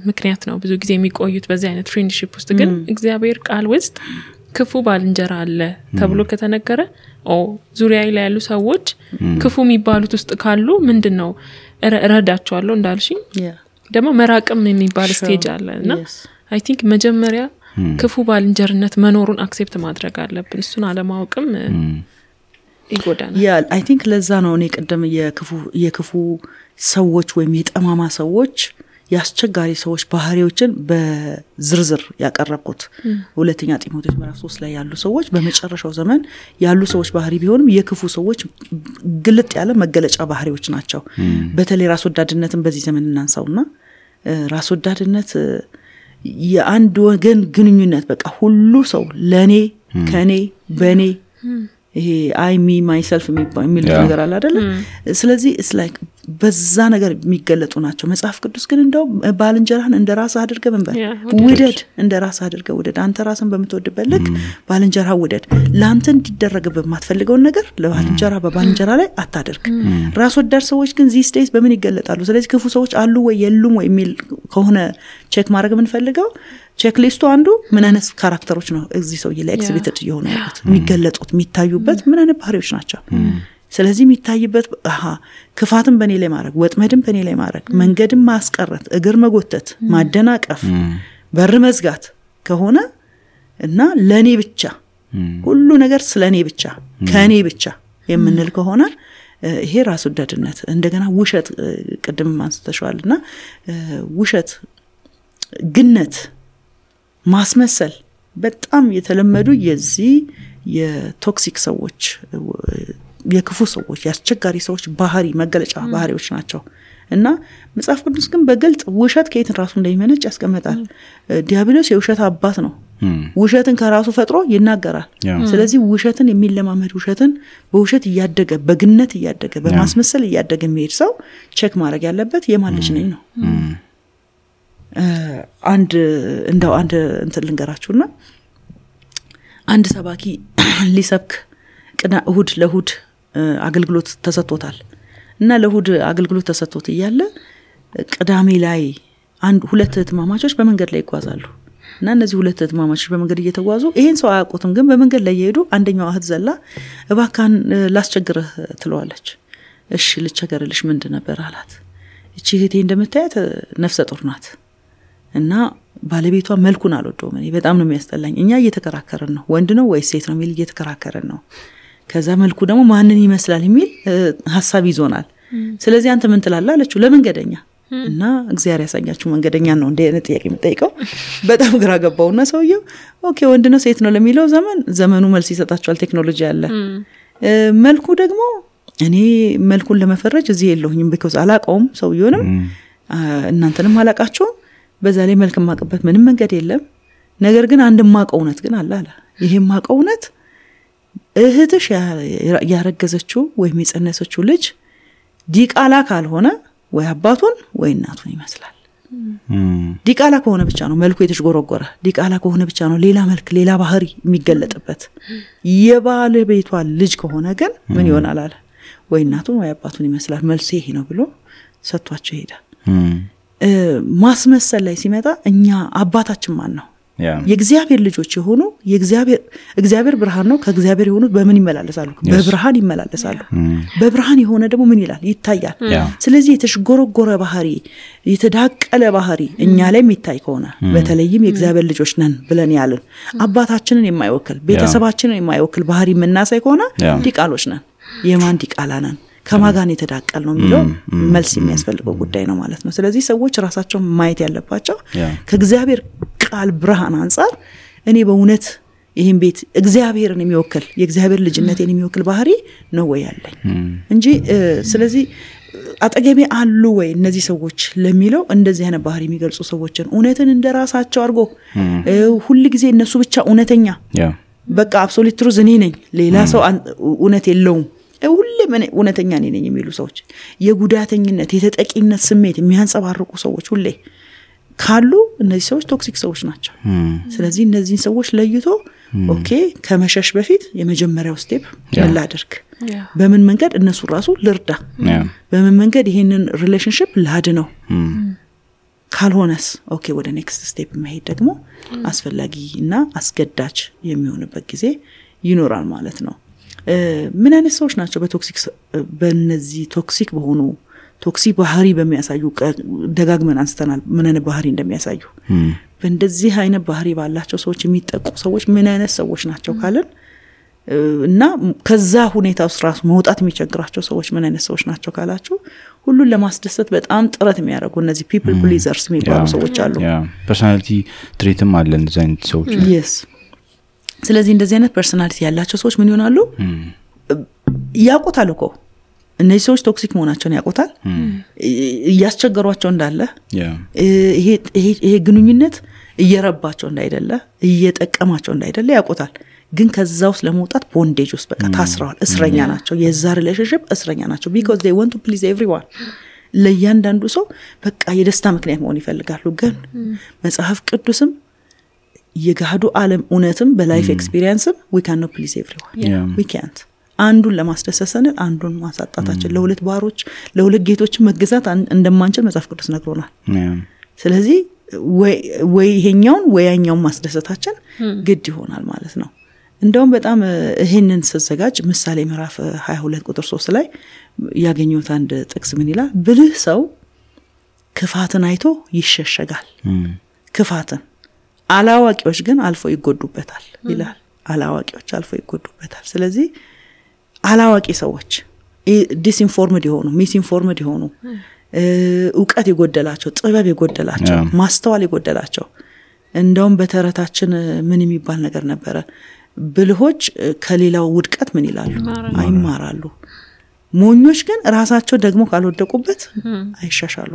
ምክንያት ነው ብዙ ጊዜ የሚቆዩት በዚህ አይነት ፍሬንድሺፕ ውስጥ ግን እግዚአብሔር ቃል ውስጥ ክፉ ባልንጀራ አለ ተብሎ ከተነገረ ዙሪያ ላይ ያሉ ሰዎች ክፉ የሚባሉት ውስጥ ካሉ ምንድነው እረዳቸዋለሁ እንዳልሽኝ ደግሞ መራቅም የሚባል ስቴጅ አለና አይ ቲንክ መጀመሪያ ክፉ ባልንጀርነት መኖሩን አክሴፕት ማድረግ አለብን እሱን አለማወቅም ይጎዳና አይ ቲንክ ለዛ ነው እኔ ቀደም የክፉ ሰዎች ወይም የጠማማ ሰዎች ያስቸጋሪ ሰዎች ባህሪዎችን በዝርዝር ያቀረብኩት ሁለተኛ ጢሞቴዎስ ምዕራፍ 3 ላይ ያሉ ሰዎች በመጨረሻው ዘመን ያሉ ሰዎች ባህሪ ቢሆንም የክፉ ሰዎች ግልጥ ያለ መገለጫ ባህሪዎች ናቸው በተለይ ራስ ወዳድነትን በዚህ ዘመን እናንሳውና ራስ ወዳድነት የአንድ ወገን ግንኙነት በቃ ሁሉ ሰው ለኔ ከኔ በኔ ይሄ አይ ሚ ማይሰልፍ የሚል ነገር አለ አይደል ስለዚህ it's like በዛ ነገር የሚገለጡ ናቸው መጽሐፍ ቅዱስ ግን እንደው ባልንጀራህን እንደራስ አድርገህ መንበር ውደድ እንደራስ አድርገህ ውደድ አንተ ራስን በመተወድበት ልክ ባልንጀራህ ውደድ ላንተ እንዲደረግብህ የማትፈልገው ነገር በባልንጀራ ላይ አታድርግ ራስ ወዳድ ሰዎች ግን these days በምን ይገለጣሉ ስለዚህ ክፉ ሰዎች አሉ ወይ የሉም ወይ የሚል ከሆነ ቼክ ማድረግ ምን ፈልገው ቼክ ሊስቱ አንዱ ምን አይነት ካራክተሮች ነው እዚህ ሰው ላይ ኤክሲቢትድ የሆነ ያሉት የሚገለጡት የሚታዩበት ምን አይነት ባህሪዎች ናቸው ስለዚህ የሚታይበት ክፋትን በኔ ላይ ማድረግ ወጥመድን በኔ ላይ ማድረግ መንገድን ማስቀረት እግር መጎተት ማደናቀፍ በር መዝጋት ከሆነ እና ለኔ ብቻ ሁሉ ነገር ስለኔ ብቻ ከኔ ብቻ የምንል ከሆነ ይሄ ራስ ወዳድነት እንደገና ውሸት ቅድም ማንስተሻልና ውሸት ግነት ማስመሰል በጣም የተለመዱ የዚህ የቶክሲክ ሰዎች የክፉ ሰዎች ያስቸጋሪ ሰዎች ባህሪ መገለጫ ባህሪዎች ናቸው እና መጽሐፍ ቅዱስ ግን በግልጽ ውሸት ከየት ራሱ እንደሚመነጭ ያስቀምጣል ዲያብሎስ የውሸት አባት ነው ውሸትን ከራሱ ፈጥሮ ይናገራል ስለዚህ ውሸትን የሚለማመድ ውሸትን በውሸት ያደገ በግነት ያደገ በማስመሰል ያደገ የሚሄድ ሰው ቼክ ማድረግ ያለበት የማን ልጅ ነኝ ነው አንድ እንትን ልንገራችሁና አንድ ሰባኪ ሊሰብክ እሁድ ለእሁድ አገልግሎት ተሰጥቶታል እና ለእሁድ አገልግሎት ተሰጥቶት እያለ ቅዳሜ ላይ ሁለት እህትማማቾች በመንገድ ላይ ይጓዛሉ እና እነዚህ ሁለት እህትማማቾች በመንገድ እየተጓዙ ይሄን ሰው አያውቁትም ግን በመንገድ ላይ እየሄዱ አንደኛው እህት ዘላ እባካን ላስቸግርህ ትለዋለች እሺ ልቸገርልሽ ምንድን ነበር አላት እቺ እህቴ እንደምታያት ነፍሰ ጡር ናት እና ባለቤቷ መልኩን አልወደውም እኔ በጣም ነው የሚያስጠላኝ እኛ እየተከራከረን ነው ወንድ ነው ወይስ ሴት ነው የሚል እየተከራከረን ነው ከዛ መልኩ ደግሞ ማንን ይመስላል የሚል ሐሳብ ይዞናል ስለዚህ አንተ ምን ትላለህ አለችው ለመንገደኛ እና እግዚአብሔር ያሳኛችሁ መንገደኛ ነው እንደ አይነት ጥያቄ የምጠይቀው በጣም ግራ ገባውና ሰውየው ኦኬ ወንድ ነው ሴት ነው ለሚለው ዘመኑ መልስ ይሰጣቸዋል ቴክኖሎጂ አለ መልኩ ደግሞ እኔ መልኩን ለመፈረጅ እዚህ የለሁኝም because አላቀውም ሰውየውንም እናንተንም አላቃችሁም በዛ ላይ መልክ ማቀበት ምንም መንገድ የለም ነገር ግን አንድ ማቀውነት ግን አለ ይሄ ማቀውነት እህትሽ ያረገዘችው ወይ የጸነሰችው ልጅ ዲቃላ ካልሆነ ወይ አባቱን ወይ እናቱን ይመስላል። ዲቃላ ከሆነ ብቻ ነው መልኩ የተሽጎረጎረ፣ ዲቃላ ከሆነ ብቻ ነው ሌላ መልክ ሌላ ባህሪ የሚገለጥበት። የባለቤቷ ልጅ ከሆነ ግን ምን ይሆናል አለ ወይ እናቱን ወይ አባቱን ይመስላል። መልሱ ይሄ ነው ብሎ ሰጥቷቸው ይሄዳል። ማስመሰል ላይ ሲመጣ እኛ አባታችን ማን ነው? የእግዚአብሔር ልጆች የሆኑ እግዚአብሔር ብርሃን ነው። ከእግዚአብሔር የሆኑት በምን ይመላለሳሉ? በብርሃን ይመላለሳሉ። በብርሃን የሆነ ደግሞ ምን ይላል? ይታያል። ስለዚህ የተሽጎረጎረ ባህሪ የተዳቀለ ባህሪ እኛ ላይ የሚታይ ከሆነ በተለይም የእግዚአብሔር ልጆች ነን ብለን ያልን አባታችንን የማይወክል ቤተሰባችንን የማይወክል ባህሪ የምናሳይ ከሆነ ዲቃሎች ነን። የማን ዲቃላ ነን? ከማጋን የተዳቀል ነው የሚለው መልስ የሚያስፈልገው ጉዳይ ነው ማለት ነው። ስለዚህ ሰዎች ራሳቸውን ማየት ያለባቸው ከእግዚአብሔር ቃል ብርሃን አንፃር እኔ በእውነት ይሄን ቤት እግዚአብሔርን የሚወክል የእግዚአብሔር ልጅነትን የሚወክል ባህሪ ነው ወይ ያለኝ እንጂ ስለዚህ አጠገቤ አሉ ወይ እነዚህ ሰዎች ለሚለው እንደዚህ አይነት ባህሪ የሚገልጹ ሰዎችን እውነትን እንደራሳቸው አድርጎ ሁሉ ጊዜ እነሱ ብቻ እውነተኛ በቃ አብሶሉት ትሩዝ እኔ ነኝ ሌላ ሰው እውነት የለውም ሁሌም እውነተኛ ነኝ የሚሉ ሰዎች የጉዳተኝነት የተጠቂነት ስሜት የሚያንጸባርቁ ሰዎች ሁሌ ካሉ እነዚህ ሰዎች ቶክሲክ ሰዎች ናቸው። ስለዚህ እነዚህ ሰዎች ለይቶ ኦኬ ከመሸሽ በፊት የመጀመሪያው ስቴፕ ምን ላድርግ? በምን መንገድ እነሱ ራሱ ልርዳ? በምን መንገድ ይሄንን ሪሌሽንሺፕ ላድነው? ካልሆነስ ኦኬ ወደ ኔክስት ስቴፕ መሄድ ደግሞ አስፈላጊና አስገዳጅ የሚሆንበት ጊዜ ይኖራል ማለት ነው። ምን አይነት ሰዎች ናቸው በእነዚህ ቶክሲክ በሆኑ ቶክሲክ ባህሪ በሚያሳዩ ደጋግመን አንስተናል ምን አይነት ባህሪ እንደሚያሳዩ በእንደዚህ አይነት ባህሪ ባላቸው ሰዎች የሚጠቁ ሰዎች ምን አይነት ሰዎች ናቸው ካለን እና ከዛ ሁኔታ ውስጥ ራሱ መውጣት የሚቸግራቸው ሰዎች ምን አይነት ሰዎች ናቸው ካላችሁ ሁሉን ለማስደሰት በጣም ጥረት የሚያደርጉ እነዚህ people pleasers የሚባሉ ሰዎች አሉ። ፐርሰናሊቲ ትሬትም አለ እንደዚህ አይነት ሰዎች። yes ስለዚህ እንደዚህ አይነት ፐርሰናሊቲ ያላቸው ሰዎች ምን ይሆናሉ? ያውቁታል እኮ እነዚህ ሰዎች ቶክሲክ መሆናቸውን ያውቁታል። እያስቸገሯቸው እንዳለ ይሄ ግንኙነት እየረባቸው እንዳይደለ እየጠቀማቸው እንዳይደለ ያውቁታል። ግን ከዛው ለመውጣት ቦንዴጅ ውስጥ በቃ ታስረዋል። እስረኛ ናቸው። የዛ ሪሌሽንሺፕ እስረኛ ናቸው because they want to please everyone። ለእያንዳንዱ ሰው በቃ የደስታ ምክንያት መሆን ይፈልጋሉ። ግን መጽሐፍ ቅዱስም የጋዱ ዓለም እውነትም በላይፍ ኤክስፒሪየንስም we cannot please everyone. we can't አንዱን ለማስደሰት አንዱን ማሳጣታችን ለሁለት ባሮች ለሁለት ጌቶች መገዛት እንደማንችል መጽሐፍ ቅዱስ ነግሮናል። ስለዚህ ወይ ይሄኛውን ወይ ያኛውን ማስደሰታችን ግድ ይሆናል ማለት ነው። እንደውም በጣም ይሄንን ሲዘጋጅ ምሳሌ ምዕራፍ 22 ቁጥር 3 ላይ ያገኙት አንድ ጥቅስ ምን ይላል? ብልህ ሰው ክፋትን አይቶ ይሸሸጋል። ክፋትን አላዋቂዎች ግን አልፎ ይጎዱበታል ይላል። አላዋቂዎች አልፎ ይጎዱበታል። ስለዚህ አላዋቂ ሰዎች ዲስኢንፎርምድ የሆኑ ሚስኢንፎርምድ የሆኑ ዕውቀት የጎደላቸው ጥበብ የጎደላቸው ማስተዋል የጎደላቸው እንደውም በተረታችን ምን የሚባል ነገር ነበረ? ብልሆች ከሌላው ውድቀት ምን ይላሉ? አይማራሉ። ሞኞች ግን ራሳቸው ደግሞ ካልወደቁበት አይሻሻሉ።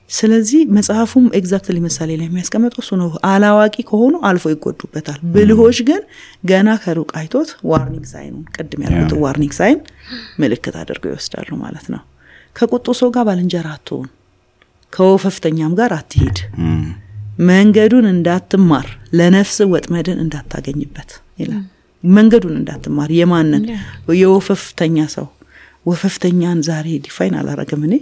ስለዚህ መጽሐፉም ኤግዛክትሊ ምሳሌ ላይ የሚያስቀምጠው እሱ ነው። አላዋቂ ከሆኑ አልፎ ይጎዱበታል። ብልሆች ግን ገና ከሩቅ አይቶት ዋርኒንግ ሳይን ቀድም ያሉት ዋርኒንግ ሳይን ምልክት አድርገው ይወስዳሉ ማለት ነው። ከቁጡ ሰው ጋር ባልንጀራ አትሁን፣ ከወፈፍተኛም ጋር አትሂድ፣ መንገዱን እንዳትማር፣ ለነፍስ ወጥመድን እንዳታገኝበት ይላል። መንገዱን እንዳትማር የማንን? የወፈፍተኛ ሰው። ወፈፍተኛን ዛሬ ዲፋይን አላረገም እኔ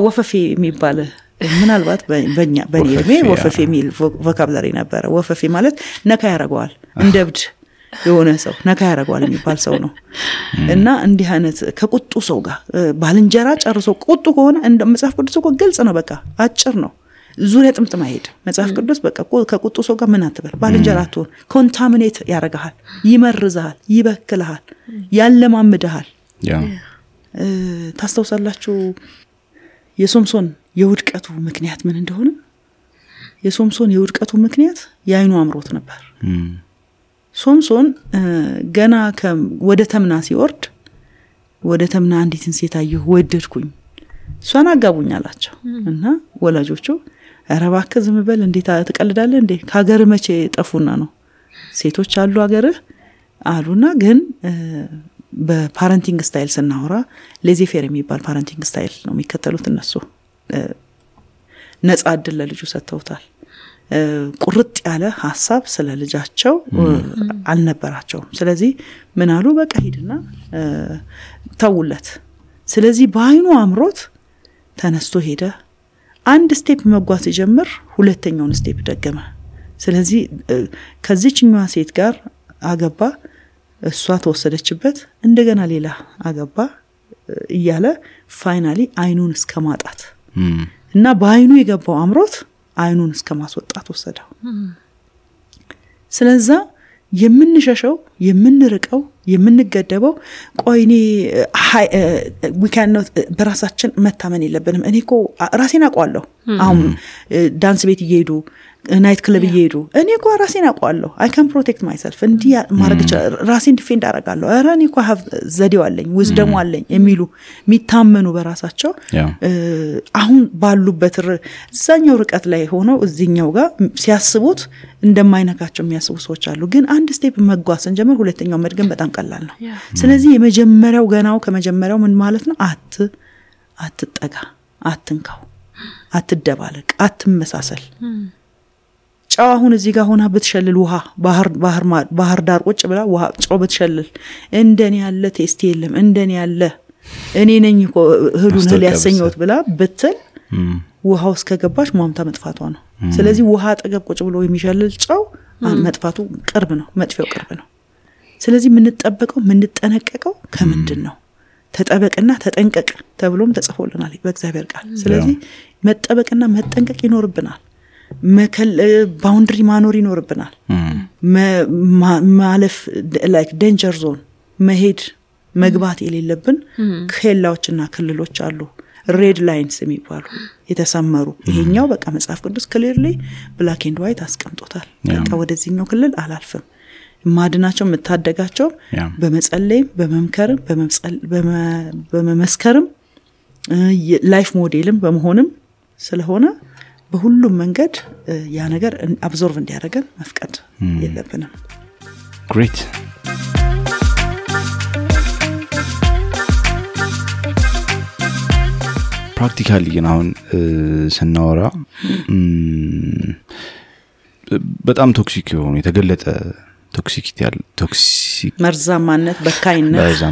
ወፈፌ የሚባል ምናልባት በእኔ ወፈፌ የሚል ቮካብላሪ ነበረ። ወፈፌ ማለት ነካ ያረጋዋል፣ እንደብድ የሆነ ሰው ነካ ያረጋዋል የሚባል ሰው ነው። እና እንዲህ አይነት ከቁጡ ሰው ጋር ባልንጀራ ጨርሶ ቁጡ ከሆነ እንደ መጽሐፍ ቅዱስ እኮ ግልጽ ነው፣ በቃ አጭር ነው፣ ዙሪያ ጥምጥም አይሄድ መጽሐፍ ቅዱስ። በቃ ከቁጡ ሰው ጋር ምን አትበል፣ ባልንጀራ አትሁን። ኮንታሚኔት ያረጋሃል፣ ይመርዛል፣ ይበክልሃል፣ ያለማምድሃል። ታስተውሳላችሁ የሶምሶን የውድቀቱ ምክንያት ምን እንደሆነ? የሶምሶን የውድቀቱ ምክንያት የአይኑ አምሮት ነበር። ሶምሶን ገና ወደ ተምና ሲወርድ ወደ ተምና አንዲትን ሴት አየሁ ወደድኩኝ፣ እሷን አጋቡኝ አላቸው። እና ወላጆቹ ኧረ እባክህ ዝም በል እንዴት ትቀልዳለህ እንዴ? ከሀገር መቼ ጠፉና ነው? ሴቶች አሉ ሀገር አሉና ግን በፓረንቲንግ ስታይል ስናወራ ሌዚፌር የሚባል ፓረንቲንግ ስታይል ነው የሚከተሉት እነሱ ነፃ እድል ለልጁ ሰጥተውታል ቁርጥ ያለ ሐሳብ ስለ ልጃቸው አልነበራቸውም ስለዚህ ምን አሉ በቃ ሂድና ተውለት ስለዚህ በአይኑ አምሮት ተነስቶ ሄደ አንድ ስቴፕ መጓዝ ሲጀምር ሁለተኛውን ስቴፕ ደገመ ስለዚህ ከዚህኛዋ ሴት ጋር አገባ እሷ ተወሰደችበት እንደገና ሌላ አገባ እያለ ፋይናሊ አይኑን እስከማጣት እና በአይኑ የገባው አምሮት አይኑን እስከማስወጣት ወሰደው ስለዚህ የምንሸሸው የምንርቀው የምንገደበው ቆይኔ we cannot በራሳችን መታመን የለብንም እኔኮ ራሴን አቋለሁ አሁን ዳንስ ቤት እየሄዱ ናይት ክለብ እየሄዱ እኔኮ ራሴን አቋለሁ I can protect myself እንዲ ማረግ ራሴን ዲፌንድ አደርጋለሁ አረ እኔኮ have ዘዴው አለኝ wisdom አለኝ የሚሉ ሚታመኑ በራሳቸው አሁን ባሉበት እዛኛው ርቀት ላይ ሆነው እዚህኛው ጋር ሲያስቡት እንደማይነካቸው የሚያስቡ ሰዎች አሉ ግን አንድ ስቴፕ መጓዝ እንጀምር ሁለተኛው መድገም በጣም ቀላል ነው ስለዚህ የመጀመሪያው ገናው ከመጀመሪያው ምን ማለት ነው አትጠጋ አትንካው አትደባለቅ አትመሳሰል ጫው አሁን እዚህ ጋር ሆና ብትሸልል ውሃ ባህር ዳር ቁጭ ብላ ውሃ ጫው ብትሸልል እንደኔ ያለ ቴስት የለም እንደኔ ያለ እኔ ነኝ እኮ ህሉን ሊያሰኘውት ብላ ብትል ውሃው እስከገባሽ ሟምታ መጥፋቷ ነው ስለዚህ ውሃ አጠገብ ቁጭ ብሎ የሚሸልል ጫው መጥፋቱ ቅርብ ነው መጥፊያው ቅርብ ነው ስለዚህ ምን ተጠነቀቀው ከምንድነው ተጠበቅና ተጠንቀቅ ተብሎም ተጽፎልናል በእግዚአብሔር ቃል ስለዚህ መጠበቅና መጠንቀቅ ይኖርብናል ባውንደሪ ማኖር ይኖርብናል ማለፍ like danger zone መሄድ መግባት የሌለብን ከላዎችና ክልሎች አሉ ሬድ ላይንስ የሚባሉ የተሰመሩ ይሄኛው በቃ መጽሐፍ ቅዱስ clearly black and white አስቀምጦታል በቃ ወደዚህኛው ክልል አላልፍም ማድናቸው መታደጋቸው በመጸለይም በመምከርም በመመስከርም ላይፍ ሞዴልም በመሆንም ስለሆነ በሁሉም መንገድ ያ ነገር አብዞርቭ እንዲያደርገን መፍቀድ የለብንም great ፕራክቲካሊ ግን አሁን ስናወራ በጣም ቶክሲክ የሆኑ የተገለጠ ቶክሲክ መርዛማነት በካይነት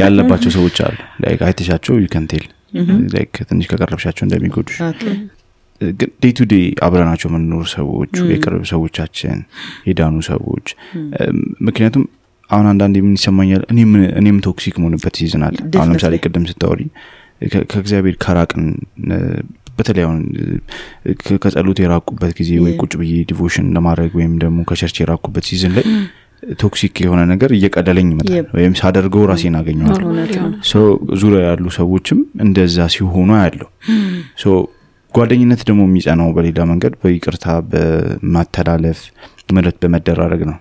ያለባቸው ሰዎች አሉ like አይተሻቸው you can tell like ትንሽ ከቀረብሻቸው እንደሚጎዱሽ ግን ዴይ ቱ ዴይ አብረናቸው መኖር ሰዎች የቅርብ ሰዎቻችን የዳኑ ሰዎች ምክንያቱም አሁን አንዳንዴ ምን ይሰማኛል እኔም ቶክሲክ መሆንበት ይዝናል አሁን ለምሳሌ ቅድም ስታወሪ ከእግዚአብሔር ከራቅን በተለያዩ ከጸሎት የራቁበት ጊዜ ወይ ቁጭ ብዬ ዲቮሽን ለማድረግ ወይም ደግሞ ከቸርች የራቁበት ሲዝን ላይ ቶክሲክ የሆነ ነገር እየቀደለኝ ይመጣል ወይም ሳደርገው ራሴን አገኘዋለሁ ሶ ዙሪያ ያሉ ሰዎችም እንደዛ ሲሆኑ ያለው ሶ ጓደኝነት ደግሞ የሚጸናው በሌላ መንገድ በይቅርታ በማተላለፍ ምረት በመደራረግ ነው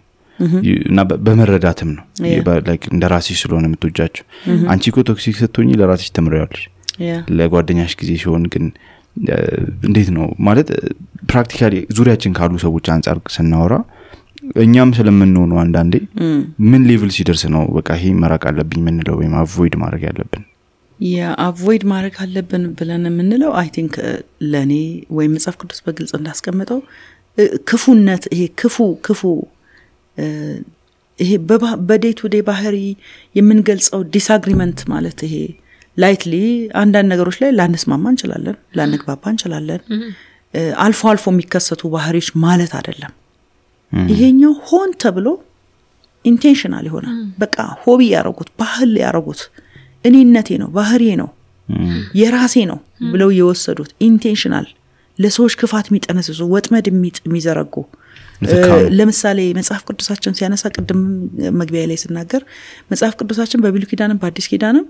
እና በመረዳትም ነው like እንደራስሽ ስለሆነ የምትወጃቸው አንቺ እኮ ቶክሲክ ስትሆኚ ለራስሽ ተምሪያለሽ ለጓደኛሽ ጊዜ ሲሆን ግን እንዴት ነው ማለት ፕራክቲካሊ ዙሪያችን ካሉ ሰዎች አንፃር ስናወራ እኛም ስለምንሆነው አንዳንዴ ምን ሌቭል ሲደርስ ነው በቃ ይሄ መራቅ አለብኝ ምንለው ወይም አቮይድ ማድረግ ያለብን አቮይድ ማድረግ አለብን ብለን የምንለው አይ ቲንክ ለኔ ወይ መጽሐፍ ቅዱስ በግልጽ እንዳስቀመጠው ክፉነት ይሄ ክፉ ይሄ በዴይ ቱ ዴይ ባህሪ የምንገልጸው ዲስአግሪመንት ማለት ይሄ ላይትሊ አንዳንድ ነገሮች ላይ ላንስማማ እንችላለን ላንግባባ እንችላለን አልፎ የሚከሰቱ ባህሪዎች ማለት አይደለም ይሄኛው ሆን ተብሎ ኢንቴንሽናል ይሆናል በቃ ሆቢ ያረጉት ባህል ያረጉት እኔነቴ ነው ባህሪዬ ነው የራሴ ነው ብለው የወሰዱት ኢንቴንሽናል ለሰዎች ክፋት የሚጠነስሱ ወጥመድ የሚዘረጉ ለምሳሌ መጽሐፍ ቅዱሳችን ሲያነሳ ቅድም መግቢያ ላይ ሲናገር መጽሐፍ ቅዱሳችን በብሉይ ኪዳንም በአዲስ ኪዳንም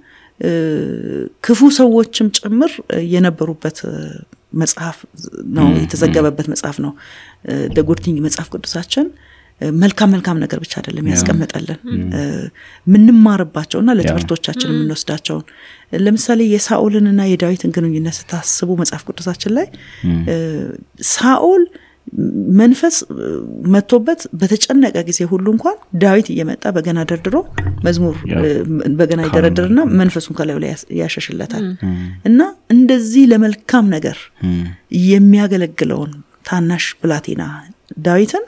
ክፉ ሰዎችም ጭምር የነበሩበት መጽሐፍ ነው የተዘገበበት መጽሐፍ ነው ደጉርቲንግ መጽሐፍ ቅዱሳችን መልካም ነገር ብቻ አይደለም ያስቀመጠልን ምንማርባቸውና ለትምህርቶቻችን የምንወስዳቸው ለምሳሌ የሳኦልንና የዳዊትን ግንኙነት ስታስቡ መጽሐፍ ቅዱሳችን ላይ ሳኦል መንፈስ መጥቶበት በተጨነቀ ጊዜ ሁሉ እንኳን ዳዊት እየመጣ በገና ደርድሮ መዝሙር በገና ይደረድርና መንፈሱን ከላዩ ላይ ያሸሽለታል እና እንደዚህ ለመልካም ነገር የሚያገለግለውን ታናሽ ብላቴና ዳዊትን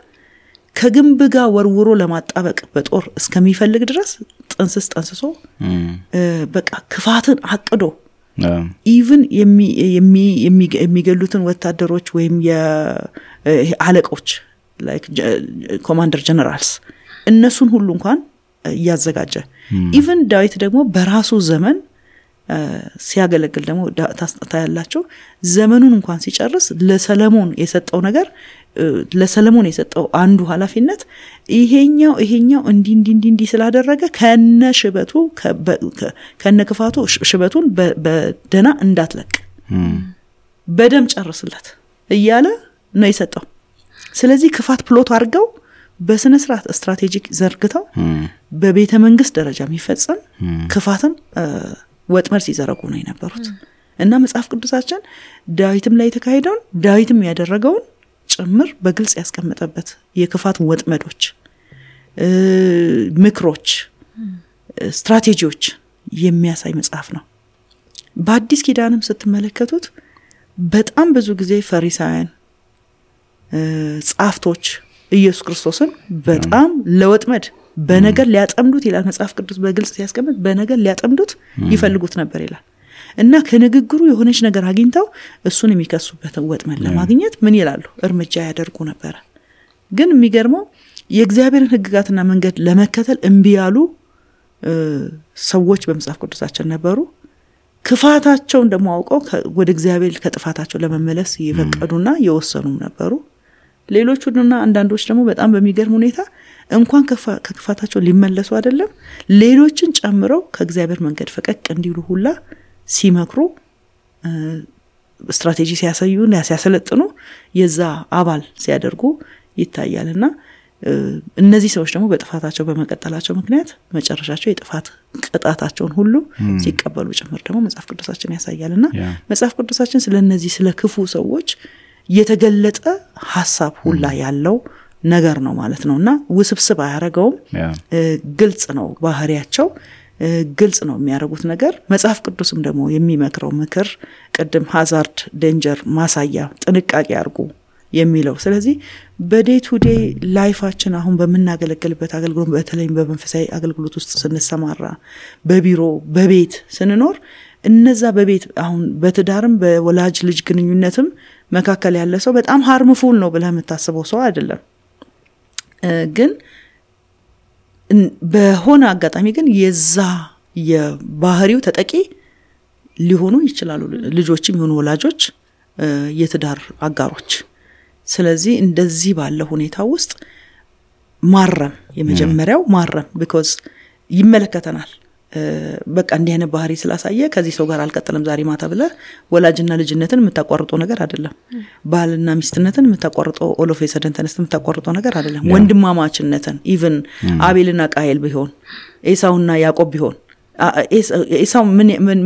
ከግንብ ጋር ወርውሮ ለማጣበቅ በጦር እስከሚፈልግ ድረስ ጠንስሶ በቃ ክፋትን አቅዶ ኢቭን የሚገሉትን ወታደሮች ወይም የአለቆች ላይክ ኮማንደር ጀነራልስ እነሱን ሁሉ እንኳን ያዘጋጀ ኢቭን ዳዊት ደግሞ በራሱ ዘመን ሲያገለግል ደግሞ ታያላችሁ ዘመኑን እንኳን ሲጨርስ ለሰለሞን የሰጠው ነገር ለሰለሞን የሰጠው አንዱ ኃላፊነት ይሄኛው እንዲ ስላደረገ ከነሽበቱ ከነክፋቱ ሽበቱን በደና እንዳትለቅ በደም ጨርስለት እያለ ነው የሰጠው ስለዚህ ክፋት ፕሎት አድርገው በስነ ስርዓት ስትራቴጂክ ዘርግተው በቤተ መንግስት ደረጃ የሚፈጸም ክፋትን ወጥመድ ሲዘረጉ ነው የነበሩት እና መጽሐፍ ቅዱሳችን ዳዊትም ላይ ተካሄደውን ዳዊትም ያደረገውን ጭምር በግልጽ ያስቀመጠበት የክፋት ወጥመዶች ምክሮች ስትራቴጂዎች የሚያሳይ መጽሐፍ ነው በአዲስ ኪዳንም ስትመለከቱት በጣም ብዙ ጊዜ ፈሪሳውያን ጻፍቶች ኢየሱስ ክርስቶስን በጣም ለወጥመድ በነገር ሊያጠምዱት ይላል መጽሐፍ ቅዱስ በግልጽ ሲያስቀምጥ በነገር ሊያጠምዱት ይፈልጉት ነበር ይላል እና ከንግግሩ የሆነች ነገር አግኝተው እሱን የሚከሱበትን ወጥመድ ለማግኘት ምን ይላሉ እርምጃ ያደርጉ ነበር ግን የሚገርመው የእግዚአብሔርን ሕግጋትና መንገድ ለመከተል እምቢ ያሉ ሰዎች በመጽሐፍ ቅዱሳችን ነበሩ ክፋታቸውን ደግሞ አውቀው ወደ እግዚአብሔር ከጥፋታቸው ለመመለስ ይፈቀዱና የወሰኑም ነበሩ ሌሎቹና አንዳንዶች ደግሞ በጣም በሚገርም ሁኔታ እንኳን ከክፋታቸው ሊመለሱ አይደለም ሌሎችን ጨምረው ከእግዚአብሔር መንገድ ፈቀቅ እንዲሉ ሁላ ሲመክሩ ስትራቴጂ ሲያሳዩና ሲያሰለጥኑ የዛ አባል ሲያደርጉ ይታያልና እነዚህ ሰዎች ደግሞ በጥፋታቸው በመቀጠላቸው ምክንያት መጨረሻቸው የጥፋት ቅጣታቸውን ሁሉ ሲቀበሉ ጭምር ደግሞ መጽሐፍ ቅዱሳችን ያሳያልና መጽሐፍ ቅዱሳችን ስለነዚህ ስለ ክፉ ሰዎች የተገለጠ ሐሳብ ሁላ ያለው ነገር ነው ማለት ነውና ውስብስብ አያረጋውም ግልጽ ነው ባህሪያቸው ግልጽ ነው የሚያረጉት ነገር መጽሐፍ ቅዱስም ደግሞ የሚመክረው ምክር ቀደም ሃዛርድ ዴንጀር ማሳያ ጥንቃቄ አርጉ የሚለው ስለዚህ በዴይ ቱ ዴይ ላይፋችን አሁን በመናገለግልበት አገልግሎት በተለይም በመንፈሳዊ አገልግሎት ውስጥ ስንሰማራ በቢሮ በቤት ስንኖር እነዛ በቤት አሁን በትዳርም በወላጅ ልጅ ግንኙነትም መካከል ያለ ሰው በጣም ሃርምፉል ነው ብለህ የምታስበው ሰው አይደለም ግን በሆነ አጋጣሚ ግን የዛ የባህሪው ተጠቂ ሊሆኑ ይችላሉ ልጆችም ይሁኑ ወላጆች የትዳር አጋሮች ስለዚህ እንደዚህ ባለ ሁኔታ ውስጥ ማረም የመጀመሪያው ማረም because ይመለከተናል በቃ እንዲህ አይነት ባህሪ ስላሳየ ከዚህ ሰው ጋር አልቀጥልም ዛሬ ማታ ብለ ወላጅና ልጅነትን የምታቋርጠው ነገር አይደለም ባልና ሚስትነትን የምታቋርጠው ኦሎፍ የሰደን ተነስተን የምታቋርጠው ነገር አይደለም ወንድማማችነትን ኢቭን አቤልና ቃየል ቢሆን ኤሳውና ያዕቆብ ቢሆን ኤሳው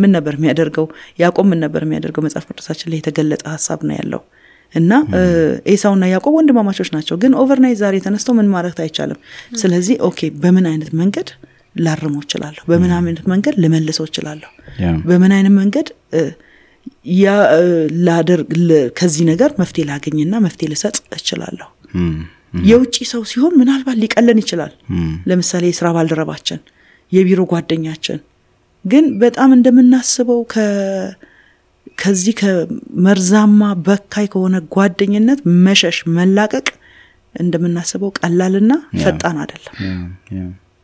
ምን ነበር የሚያደርገው ያዕቆብ ምን ነበር የሚያደርገው መጽሐፍ ቅዱሳችን ላይ የተገለጠ ሐሳብ ነው ያለው እና ኤሳውና ያዕቆብ ወንድማማቾች ናቸው ግን ኦቨርናይት ዛሬ ተነስተው ምን ማድረግ አይቻልም ስለዚህ ኦኬ በምን አይነት መንገድ ላርመው ይችላልው በምን አይነት መንገድ ለመልሰው ይችላልው በምን አይነት መንገድ ያ ላደርግ ከዚህ ነገር መፍትሄ ላገኝና መፍትሄ ልሰጥ ይችላልው የውጪ ሰው ሲሆን ምናልባት ሊቀለን ይችላል ለምሳሌ የሥራ ባልደረባችን የቢሮ ጓደኛችን ግን በጣም እንደምናስበው ከዚህ ከመርዛማ በካይ ከሆነ ጓደኝነት መሸሽ መላቀቅ እንደምናስበው ቀላልና ፈጣን አይደለም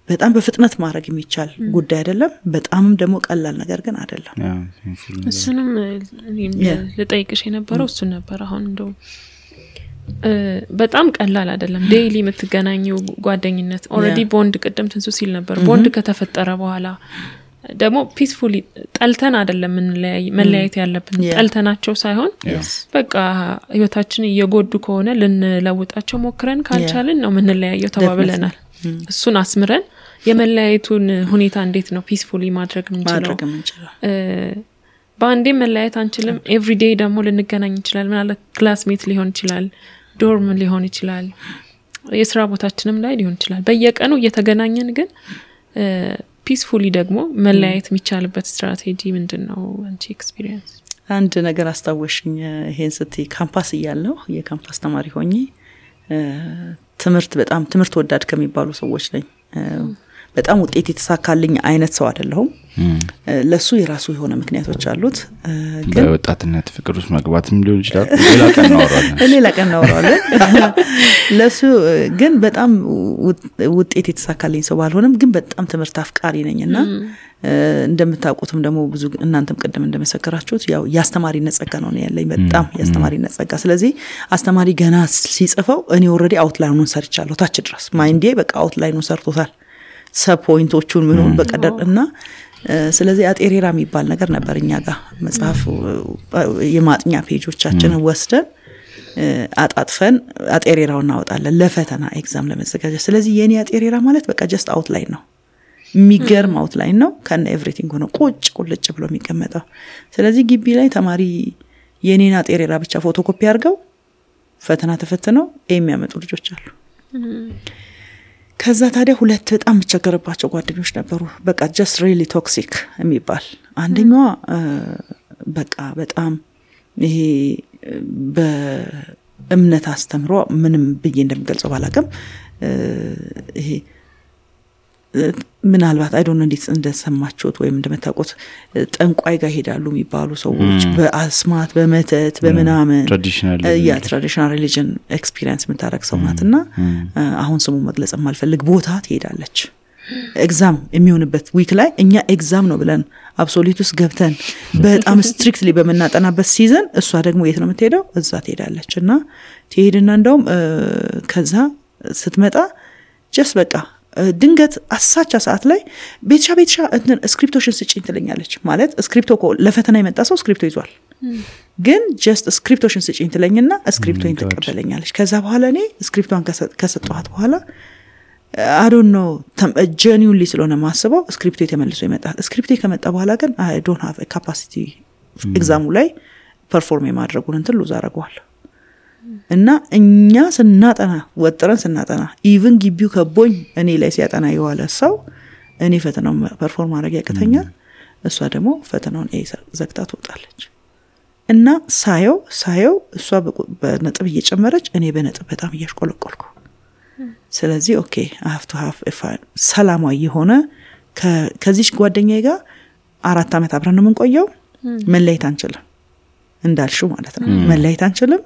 በጣም በፍጥነት ማድረግ የሚቻል ጉዳይ አይደለም በጣምም ደግሞ ቀላል ነገር ግን አይደለም እሱንም ለጠይቅሽ የነበረው እሱ ነበር አሁን እንደው በጣም ቀላል አይደለም ዴይሊ የምትገናኙ ጓደኝነት ኦሬዲ ቦንድ ቀደም ትንሱ ሲል ነበር ቦንድ ከተፈጠረ በኋላ ደግሞ ፒስፉሊ ጠልተን አይደለም መለያየት ያለብን ጠልተናቸው ሳይሆን በቃ ህይወታችን እየጎዱ ከሆነ ልንለውጣቸው ሞክረን ካልቻልን ነው ምንለያየው ተባብለናል እሱን አስምረን የመለያየቱን ሁኔታ እንዴት ነው ፒስፉሊ ማድረግ ምንችለው በአንዴ መለያየት አንችልም ኤቭሪዴይ ደግሞ ልንገናኝ ይችላል ማለት ክላስሜት ሊሆን ይችላል ዶርም ሊሆን ይችላል የስራ ቦታችንም ላይ ሊሆን ይችላል በየቀኑ እየተገናኘን ግን ፒስፉሊ ደግሞ መለያየት የሚቻልበት ስትራቴጂ ምንድነው አንቺ ኤክስፒሪየንስ አንድ ነገር አስታወሽኝ ይሄን ስትይ ካምፓስ እያለሁ የካምፓስ ተማሪ ሆኜ ትምህርት ወዳድ ከሚባሉ ሰዎች ነኝ በጣም ውጤት የተሳካልኝ አይነት ሰው አይደለሁም ለሱ የራሱ የሆነ ምክንያቶች አሉት ግን በወጣትነት ፍቅር ውስጥ መግባትም ሊሆን ይችላል ሌላ ቀን እናወራለን ለሱ ግን በጣም ውጤት የተሳካልኝ ሰው ባልሆነም ግን በጣም ትምህርት አፍቃሪ ነኝና እንደምታውቁትም ደግሞ ብዙ እናንተም ቀደም እንደመሰከራችሁት ያው ያስተማሪነት ጸጋ ነው ያለኝ በጣም ያስተማሪነት ጸጋ ስለዚህ አስተማሪ ገና ሲጽፈው እኔ ኦሬዲ አውትላይኑን ሰርቻለሁ ታች ድረስ ማይንዴ በቃ አውትላይኑን ሰርቶታል ሰፖይንቶቹን ምኑን በቀደርና ስለዚህ አጤሬራ የሚባል ነገር ነበርኛ ጋር መጽሐፍ የማጥኛ ፔጆቻችንን ወስደን አጣጥፈን አጤሬራውን እናወጣለን ለፈተና ኤግዛም ለመዘጋጀት ስለዚህ የኔ አጤሬራ ማለት በቃ ጀስት አውትላይን ነው የሚገርም አውትላይን ነው ከነ ኤቭሪቲንግ ሆኖ ቁልጭ ብሎ የሚቀመጠው ስለዚህ ግቢ ላይ ተማሪ የኔን አጤሬራ ብቻ ፎቶኮፒ አድርገው ፈተና ተፈትነው የሚያመጡ ልጆች አሉ ከዛ ታዲያ ሁለት በጣም ተቸገረባቸው ጓደኞች ነበሩ በቃ just really toxic የሚባል አንደኛዋ በቃ በጣም ይሄ በእምነት አስተምሮ ምንም ብዬ እንደምገልጸው ባላቀም ይሄ ምናልባት አይ ዶንት ኖ እንዴት እንደሰማችሁት ወይም እንደምታውቁት ጠንቋይ ጋር ሄዳሉ የሚባሉ ሰዎች በአስማት በመተት በመናመን ትራዲሽናል ሪሊጅን ኤክስፒሪየንስ የምታረክ ሰው ናትና አሁን ስሙ መግለጽ ማልፈልግ ቦታ ትሄዳለች ኤግዛም የሚሆንበት ዊክ ላይ እኛ ኤግዛም ነው ብለን አብሶሉትስ ገብተን በጣም ስትሪክትሊ በመናጠናበት ሲዝን እሷ ደግሞ የት ነው የምትሄደው እዛ ትሄዳለችና ትሄድና እንደውም ከዛ ስትመጣ ጀስት በቃ ድንገት አሳቻ ሰዓት ላይ ቤትሻ ስክሪፕቶሽን ስጪኝ ትለኛለች ማለት ስክሪፕቶ ለፈተና የመጣ ሰው ስክሪፕቶ ይዟል ግን ጀስት ስክሪፕቶሽን ስጪኝ ትለኝና ስክሪፕቶን ተቀበለኛለች ከዛ በኋላ እኔ ስክሪፕቷን ከሰጠኋት በኋላ I don't know genuinely ስለሆነ ማስበው ስክሪፕቶ የተመልሶ ይመጣል ስክሪፕቶ ከመጣ በኋላ ግን I don't have a capacity ኤግዛሙ ላይ ፐርፎርም የማድረጉን እንትን ሉዝ አደረገዋለሁ እና እኛ ስናጠና ወጥረን ስናጠና ኢቭን ግቢው ከቦኝ እኔ ላይ ሲያጠና የዋለ ሰው እኔ ፈተናው ፐርፎርም ማድረግ ያቀተኛል እሷ ደግሞ ፈተናውን ዘግታ ትወጣለች እና ሳየው እሷ በነጥብ እየጨመረች እኔ በነጥብ በጣም እያሽቆለቆልኩ ስለዚህ ኦኬ I have to have a fine ሰላማዊ የሆነ ከዚህ ጓደኛዬ ጋር 4 አመት አብረን ነው የምንቆየው መለየት አንችልም እንዳልሽው ማለት ነው መለየት አንችልም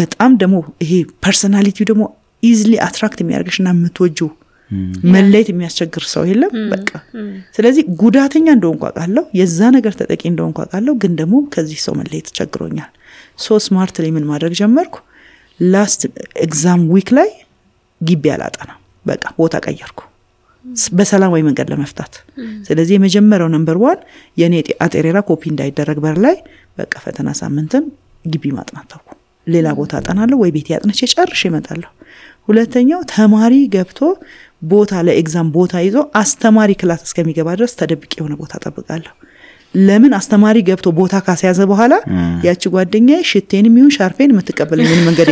በጣም ደግሞ ይሄ ፐርሰናሊቲው ደግሞ ኢዚሊ አትራክት የሚያርግሽና የምትወጂው መለየት የሚያስቸግር ሰው የለም በቃ ስለዚህ ጉዳተኛ እንደሆንኩ አውቃለሁ የዛ ነገር ተጠቂ እንደሆንኩ አውቃለሁ ግን ደግሞ ከዚህ ሰው መለየት ቸግሮኛል ሶ ስማርትሊ ምን ማድረግ ጀመርኩ ላስት ኤግዛም ዊክ ላይ ግቢ አላጠና በቃ ቦታ ቀየርኩ በሰላማዊ መንገድ ለመፍታት ስለዚህ የመጀመሪያው ነምበር 1 የኔ አጤሬራ ኮፒ እንዳይደረግ በር ላይ በቃ ፈተና ሳምንትን ግቢ ማጥናት ተውኩ ሌላ ቦታ አጠናለሁ ወይ ቤት ያጥነች ጨርሼ እመጣለሁ ሁለተኛው ተማሪ ገብቶ ቦታ ለኤግዛም ቦታ ይዞ አስተማሪ ክላስ እስከሚገባ ድረስ ተደብቄ የሆነ ቦታ ተጠብቃለሁ ለምን አስተማሪ ገብቶ ቦታ ካስያዘ በኋላ ያቺ ጓደኛዬ ሽቴንም ይሁን ሻርፔን የምትቀበለኝ ምን መንገድ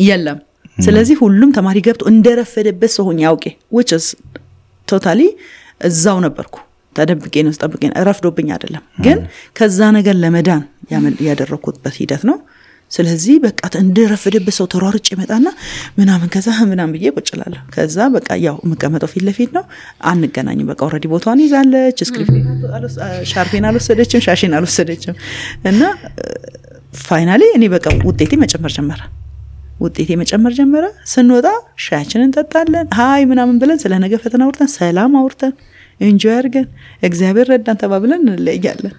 የለም ስለዚህ ሁሉም ተማሪ ገብቶ እንደረፈደበት ሰው ሆኜ ያውቄ which is totally እዛው ነበርኩ ተደብቄ ነው ተጠብቄ ረፍዶብኝ አይደለም ግን ከዛ ነገር ለመዳን ያደረኩበት ሂደት ነው ስለዚህ በቃ እንደረፈደበት ሰው ተሯርጭ ይመጣና ምናምን ከዛ ምናምን ብዬ ቁጭላለሁ ከዛ በቃ ያው መቀመጠው ፊት ለፊት ነው አንገናኝም በቃ ኦሬዲ ቦታውን ይዛለች ስክሪፕት ሻርፔን አልወሰደችም ሻሽን አልወሰደችም እና ፋይናሊ እኔ በቃ ውጤቴ መጨመር ጀመረ ስንወጣ ሻያችንን እንጠጣለን ሃይ ምናምን ብለን ስለ ነገ ፈተና አውርተን ሰላም አውርተን ኢንጆይ አድርገን እግዚአብሔር ረዳን ተባብለን እንለያለን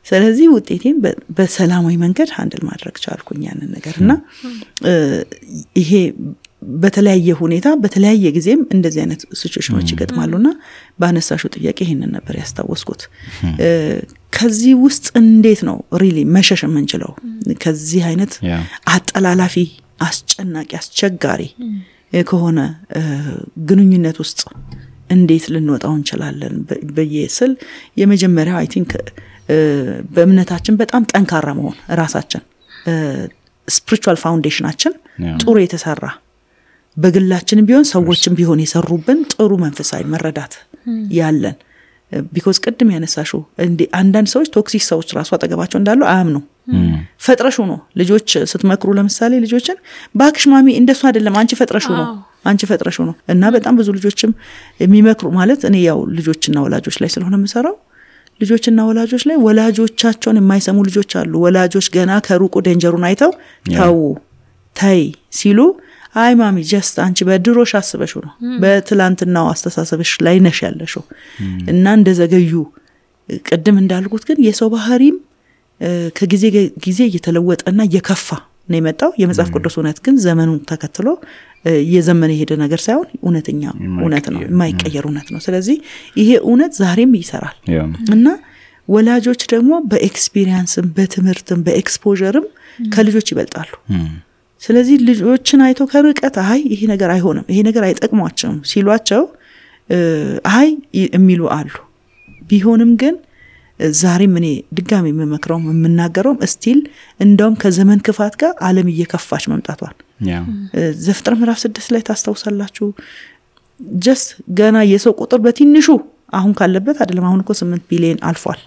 ስለዚህ ውጤቴን በሰላማዊ መንገድ ሃንድል ማድረግ ቻልኩኝ ያንን ነገርና ይሄ በተለያየ ሁኔታ በተለያየ ጊዜም እንደዚህ አይነት ሲቹዌሽኖች ይገጥማሉና ባነሳሹ ጥያቄ ይሄንን ነበር ያስታወስኩት ከዚህ ውስጥ እንዴት ነው ሪሊ መሸሽ የምንችለው ከዚህ አይነት አጠላላፊ አስጨናቂ አስቸጋሪ ከሆነ ግንኙነት ውስጥ እንዴት ልንወጣው እንችላለን በየስል የመጀመሪያው አይ ቲንክ በእምነታችን በጣም ጠንካራ መሆን ራሳችን ስፒሪቹዋል ፋውንዴሽናችን ጥሩ የተሰራ በግላችን ቢሆን ሰዎችን ቢሆን የሰሩብን ጥሩ መንፈሳዊ መረዳት ያለን ቢኮዝ ቅድም ያነሳሽው እንዴ አንዳንድ ሰዎች ቶክሲክ ሰዎች ራሱ አጠገባቸው እንዳሉ አያምኑ ፈጥረሹ ነው ልጆች ስትመክሩ ለምሳሌ ልጆችን ባክሽ ማሚ እንደሱ አይደለም አንቺ ፈጥረሹ ነው እና በጣም ብዙ ልጆችም የሚመክሩ ማለት እኔ ያው ልጆችና ወላጆች ላይ ስለሆነ የምሰራው ልጆችና ወላጆች ላይ ወላጆቻቸውን የማይሰሙ ልጆች አሉ ወላጆች ገና ከሩቁ ዴንጀሩን አይተው ታይ ሲሉ አይ ማሚ ጀስት አንቺ በድሮሽ አስበሽው ነው በትላንትናው አስተሳሰብሽ ላይ ነሽ ያለሽው እና እንደዘገዩ ቅድም እንዳልኩት ግን የሰው ባህሪም ከጊዜ ጊዜ እየተለወጠና እየከፋ ነው የመጣው የመጽሐፍ ቅዱስ እውነት ግን ዘመኑን ተከትሎ የዘመነ ሄደ ነገር ሳይሆን እውነተኛ እውነት ነው የማይቀየር እውነት ነው ስለዚህ ይሄ እውነት ዛሬም ይሰራል እና ወላጆች ደግሞ በኤክስፒሪየንስም በትምህርትም በኤክስፖዠርም ከልጆች ይበልጣሉ ስለዚህ ልጆችን አይቶ ከርቀት አይ ይሄ ነገር አይሆንም ይሄ ነገር አይጠቅማቸውም ሲሏቸው አይ የሚሉ አሉ ቢሆንም ግን ዛሬም እኔ ድጋሚ የምመክረው የምናገረው ስቲል እንደውም ከዘመን ክፋት ጋር ዓለም እየከፋች መምጣቷል ዘፍጥረት ምዕራፍ 6 ላይ ታስተውሳላችሁ ጀስት ገና የሰው ቁጥር በትንሹ አሁን ካለበት አይደለም አሁን እኮ 8 ቢሊዮን አልፏል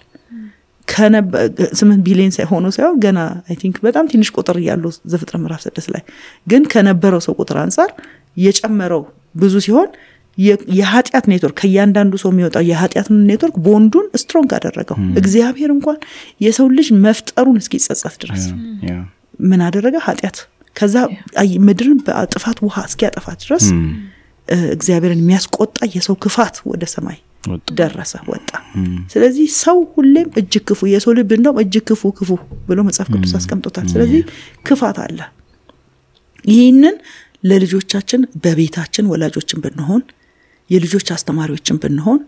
8 ቢሊዮን ሳይሆኑ ሳይሆን ገና አይ ቲንክ በጣም ትንሽ ቁጥር ያለው ዘፍጥረት ምዕራፍ 6 ላይ ግን ከነበረው ሰው ቁጥር አንፃር የጨመረው ብዙ ሲሆን የኃጢአት ኔትወርክ ከያንዳንዱ ሰው የሚወጣው የኃጢአት ኔትወርክ ቦንዱን ስትሮንግ አደረገው እግዚአብሔር እንኳን የሰው ልጅ መፍጠሩን እስኪጸጸት ድረስ ምን አደረገ ኃጢአት ከዛ ምድርን በጥፋት ውሃ እስኪያጠፋት ድረስ እግዚአብሔርን የሚያስቆጣ የሰው ክፋት ወደ ሰማይ ደረሰ ወጣ ስለዚህ ሰው ሁሌም እጅግ ክፉ የሰው ልብ እንደው እጅግ ክፉ ብሎ መጽሐፍ ቅዱስ አስቀምጦታል ስለዚህ ክፋት አለ ይሄንን ለልጆቻችን በቤታችን ወላጆችን ብንሆን የልጆች አስተማሪዎችን ብንሆን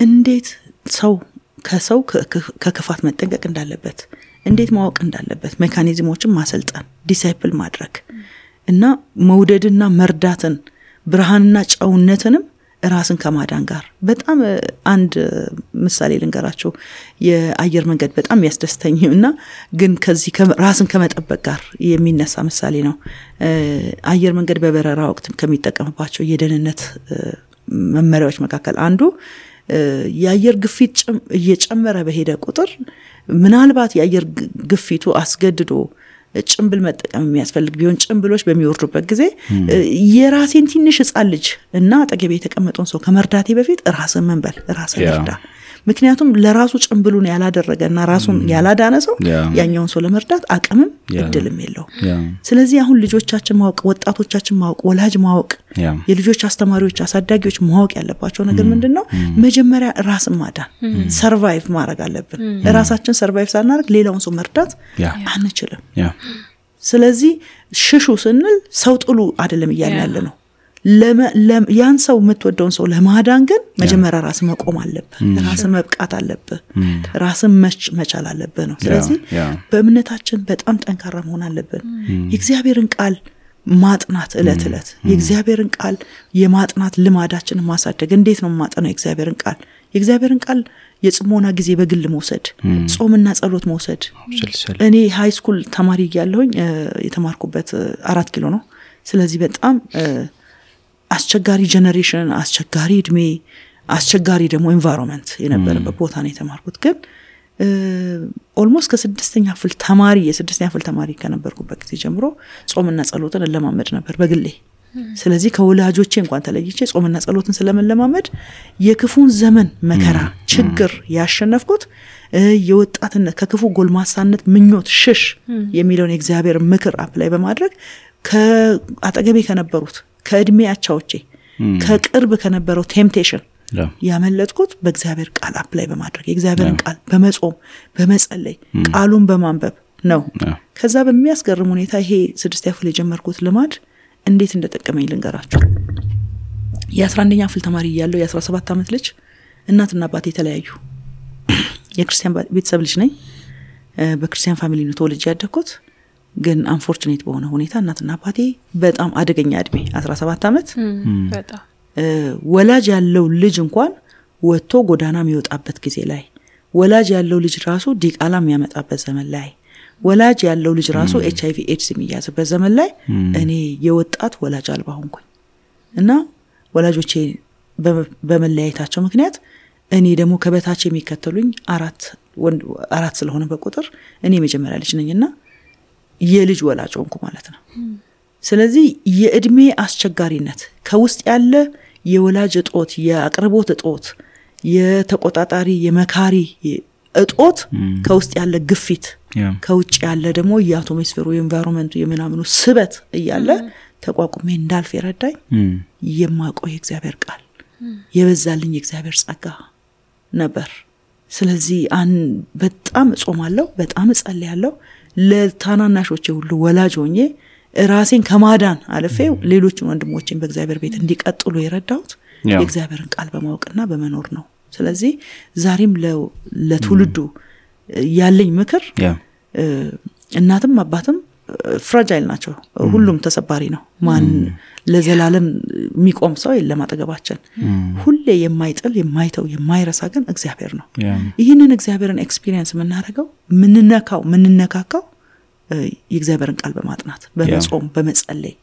እንዴት ሰው ከሰው ከክፋት መጠንቀቅ እንዳለበት እንዴት ማወቅ እንዳለበት ሜካኒዝሞችን ማሰልጠን ዲሳይፕል ማድረግ እና መውደድና መርዳትን ብርሃንና ጨውነትንም ራስን ከማዳን ጋር በጣም አንድ ምሳሌ ልንገራችሁ የአየር መንገድ በጣም ያስደስተኝና ግን ከዚህ ራስን ከመጠበቅ ጋር የሚነሳ ምሳሌ ነው አየር መንገድ በበረራ ወቅት ከሚጠቀምባቸው የደህንነት መመሪያዎች መካከል አንዱ የአየር ግፊት እየጨመረ በሄደ ቁጥር ምናልባት የአየር ግፊቱ አስገድዶ ጭምብል መጠቀም የሚያስፈልግ ቢሆን ጭምብሎች በሚወርዱበት ጊዜ የራሴን ትንሽ ህፃን ልጅ እና አጠገቤ የተቀመጠውን ሰው ከመርዳቴ በፊት ራስን መንበል ራስን ይርዳ ምክንያቱም ለራሱ ጭምብሉን ያላደረገና ራሱን ያላዳነ ሰው ያኛውን ሰው ለመርዳት አቅምም እድልም የለው ስለዚህ አሁን ልጆቻችን ማወቅ ወጣቶቻችን ማወቅ ወላጅ ማወቅ የልጆች አስተማሪዎች አሳዳጊዎች ማወቅ ያለባቸው ነገር ምንድነው መጀመሪያ ራስን ማዳን ሰርቫይቭ ማድረግ አለብን ራሳችን ሰርቫይቭ ሳናደርግ ሌላውን ሰው መርዳት አንችልም ስለዚህ ሽሹ ስንል ሰው ጥሉ አይደለም ይያላል ነው ያን ሰው የምትወደውን ሰው ለማዳን ግን መጀመሪያ ራስ መቆም አለበት ራስ መብቃት አለበት ራስ መቻል አለበት ነው ስለዚህ በእምነታችን በጣም ጠንካራ መሆን አለብን የእግዚአብሔርን ቃል ማጥናት እለት የእግዚአብሔርን ቃል የማጥናት ልማዳችንን ማሳደግ እንዴት ነው ማጥናት የእግዚአብሔርን ቃል የጽሞና ጊዜ በግል መውሰድ ጾምና ጸሎት መውሰድ እኔ ሃይ ስኩል ተማሪ ያለሁኝ የተማርኩበት 4 ኪሎ ነው ስለዚህ በጣም አስቸጋሪ ጀነሬሽን አስቸጋሪ እድሜ አስቸጋሪ ደግሞ ኤንቫይሮንመንት የነበረበት ቦታ ነው የተማርኩት ግን ኦልሞስት ከ6ኛ ክፍል ተማሪ ከነበርኩበት ጊዜ ጀምሮ ጾምና ጸሎትን ለማመድ ነበር በግሌ ስለዚህ ከወላጆቼ እንኳን ተለይቼ ጾምና ጸሎትን ስለመለማመድ የክፉን ዘመን መከራ ችግር ያሸነፍኩት የወጣትነት ከክፉ ጎልማሳነት ምኞት ሽሽ የሚለውን የእግዚአብሔር ምክር አፕላይ በማድረግ ከአጠገቤ ከነበሩት ከእድሜ አቻዎቼ ከቅርብ ከነበረው ቴምፕቴሽን ያመለጥኩት በእግዚአብሔር ቃል አፕላይ በማድረግ የእግዚአብሔርን ቃል በመጾም በመጸለይ ቃሉን በማንበብ ነው ከዛ በሚያስገርም ሁኔታ ይሄ 6ኛ ክፍል የጀመርኩት ልማድ እንዴት እንደተጠቀመኝ ልንገራችሁ የ11ኛ ክፍል ተማሪ ያለው የ17 ዓመት ልጅ እናትና አባቴ ተለያዩ የክርስቲያን ቤተሰብ ልጅ ነኝ በክርስቲያን ፋሚሊ ነው ተወልጄ ያደግኩት ግን አንፎርቹኔት በሆነ ሁኔታ እናትና አባቴ በጣም አደገኛ እድሜ 17 ዓመት በጣም ወላጅ ያለው ልጅ እንኳን ወጥቶ ጎዳና የሚወጣበት ጊዜ ላይ ወላጅ ያለው ልጅ ራሱ ዲቃላ የሚያመጣበት ዘመን ላይ ወላጅ ያለው ልጅ ራሱ HIV AIDS የሚያዝበት ዘመን ላይ እኔ የወጣት ወላጅ አልባ ሆንኩኝ እና ወላጆቼ በመለያየታቸው ምክንያት እኔ ደግሞ ከበታች የሚከተሉኝ አራት ስለሆነ በቁጥር እኔ መጀመሪያ ልጅ ነኝና የልጅ ወላጅ ሆንኩ ማለት ነው። ስለዚህ የእድሜ አስቸጋሪነት ከውስጥ ያለ የወላጅ እጦት የአቅርቦት እጦት የተቆጣጣሪ የመካሪ እጦት ከውስጥ ያለ ግፊት ከውጭ ያለ ደግሞ የአቶሞስፌሩ የኤንቫይሮንመንቱ የምናምኑ ስበት እያለ ተቋቁሜ እንዳልፍ የረዳኝ የማቆይ እግዚአብሔር ቃል የበዛልኝ እግዚአብሔር ጸጋ ነበር። ስለዚህ በጣም ጾማለሁ በጣም ጸልያለሁ ለታናናሾቼ ሁሉ ወላጅ ሆኜ ራሴን ከማዳን አልፌ ሌሎችን ወንድሞቼን በእግዚአብሔር ቤት እንዲቀጥሉ የረዳሁት የእግዚአብሔርን ቃል በማወቅና በመኖር ነው። ስለዚህ ዛሬም ለትውልዱ ያለኝ ምክር እናትም አባትም ፍራጃይል ናቸው። ሁሉም ተሰባሪ ነው። ማን ለዘላለም የሚቆም ሰው የለም አጠገባችን። ሁሌ የማይጥል የማይተው የማይረሳ ግን እግዚአብሔር ነው። ይህንን እግዚአብሔርን ኤክስፒሪየንስ የምናደርገው ምንነካካው የእግዚአብሔርን ቃል በማጥናት በመጾም በመጸለይ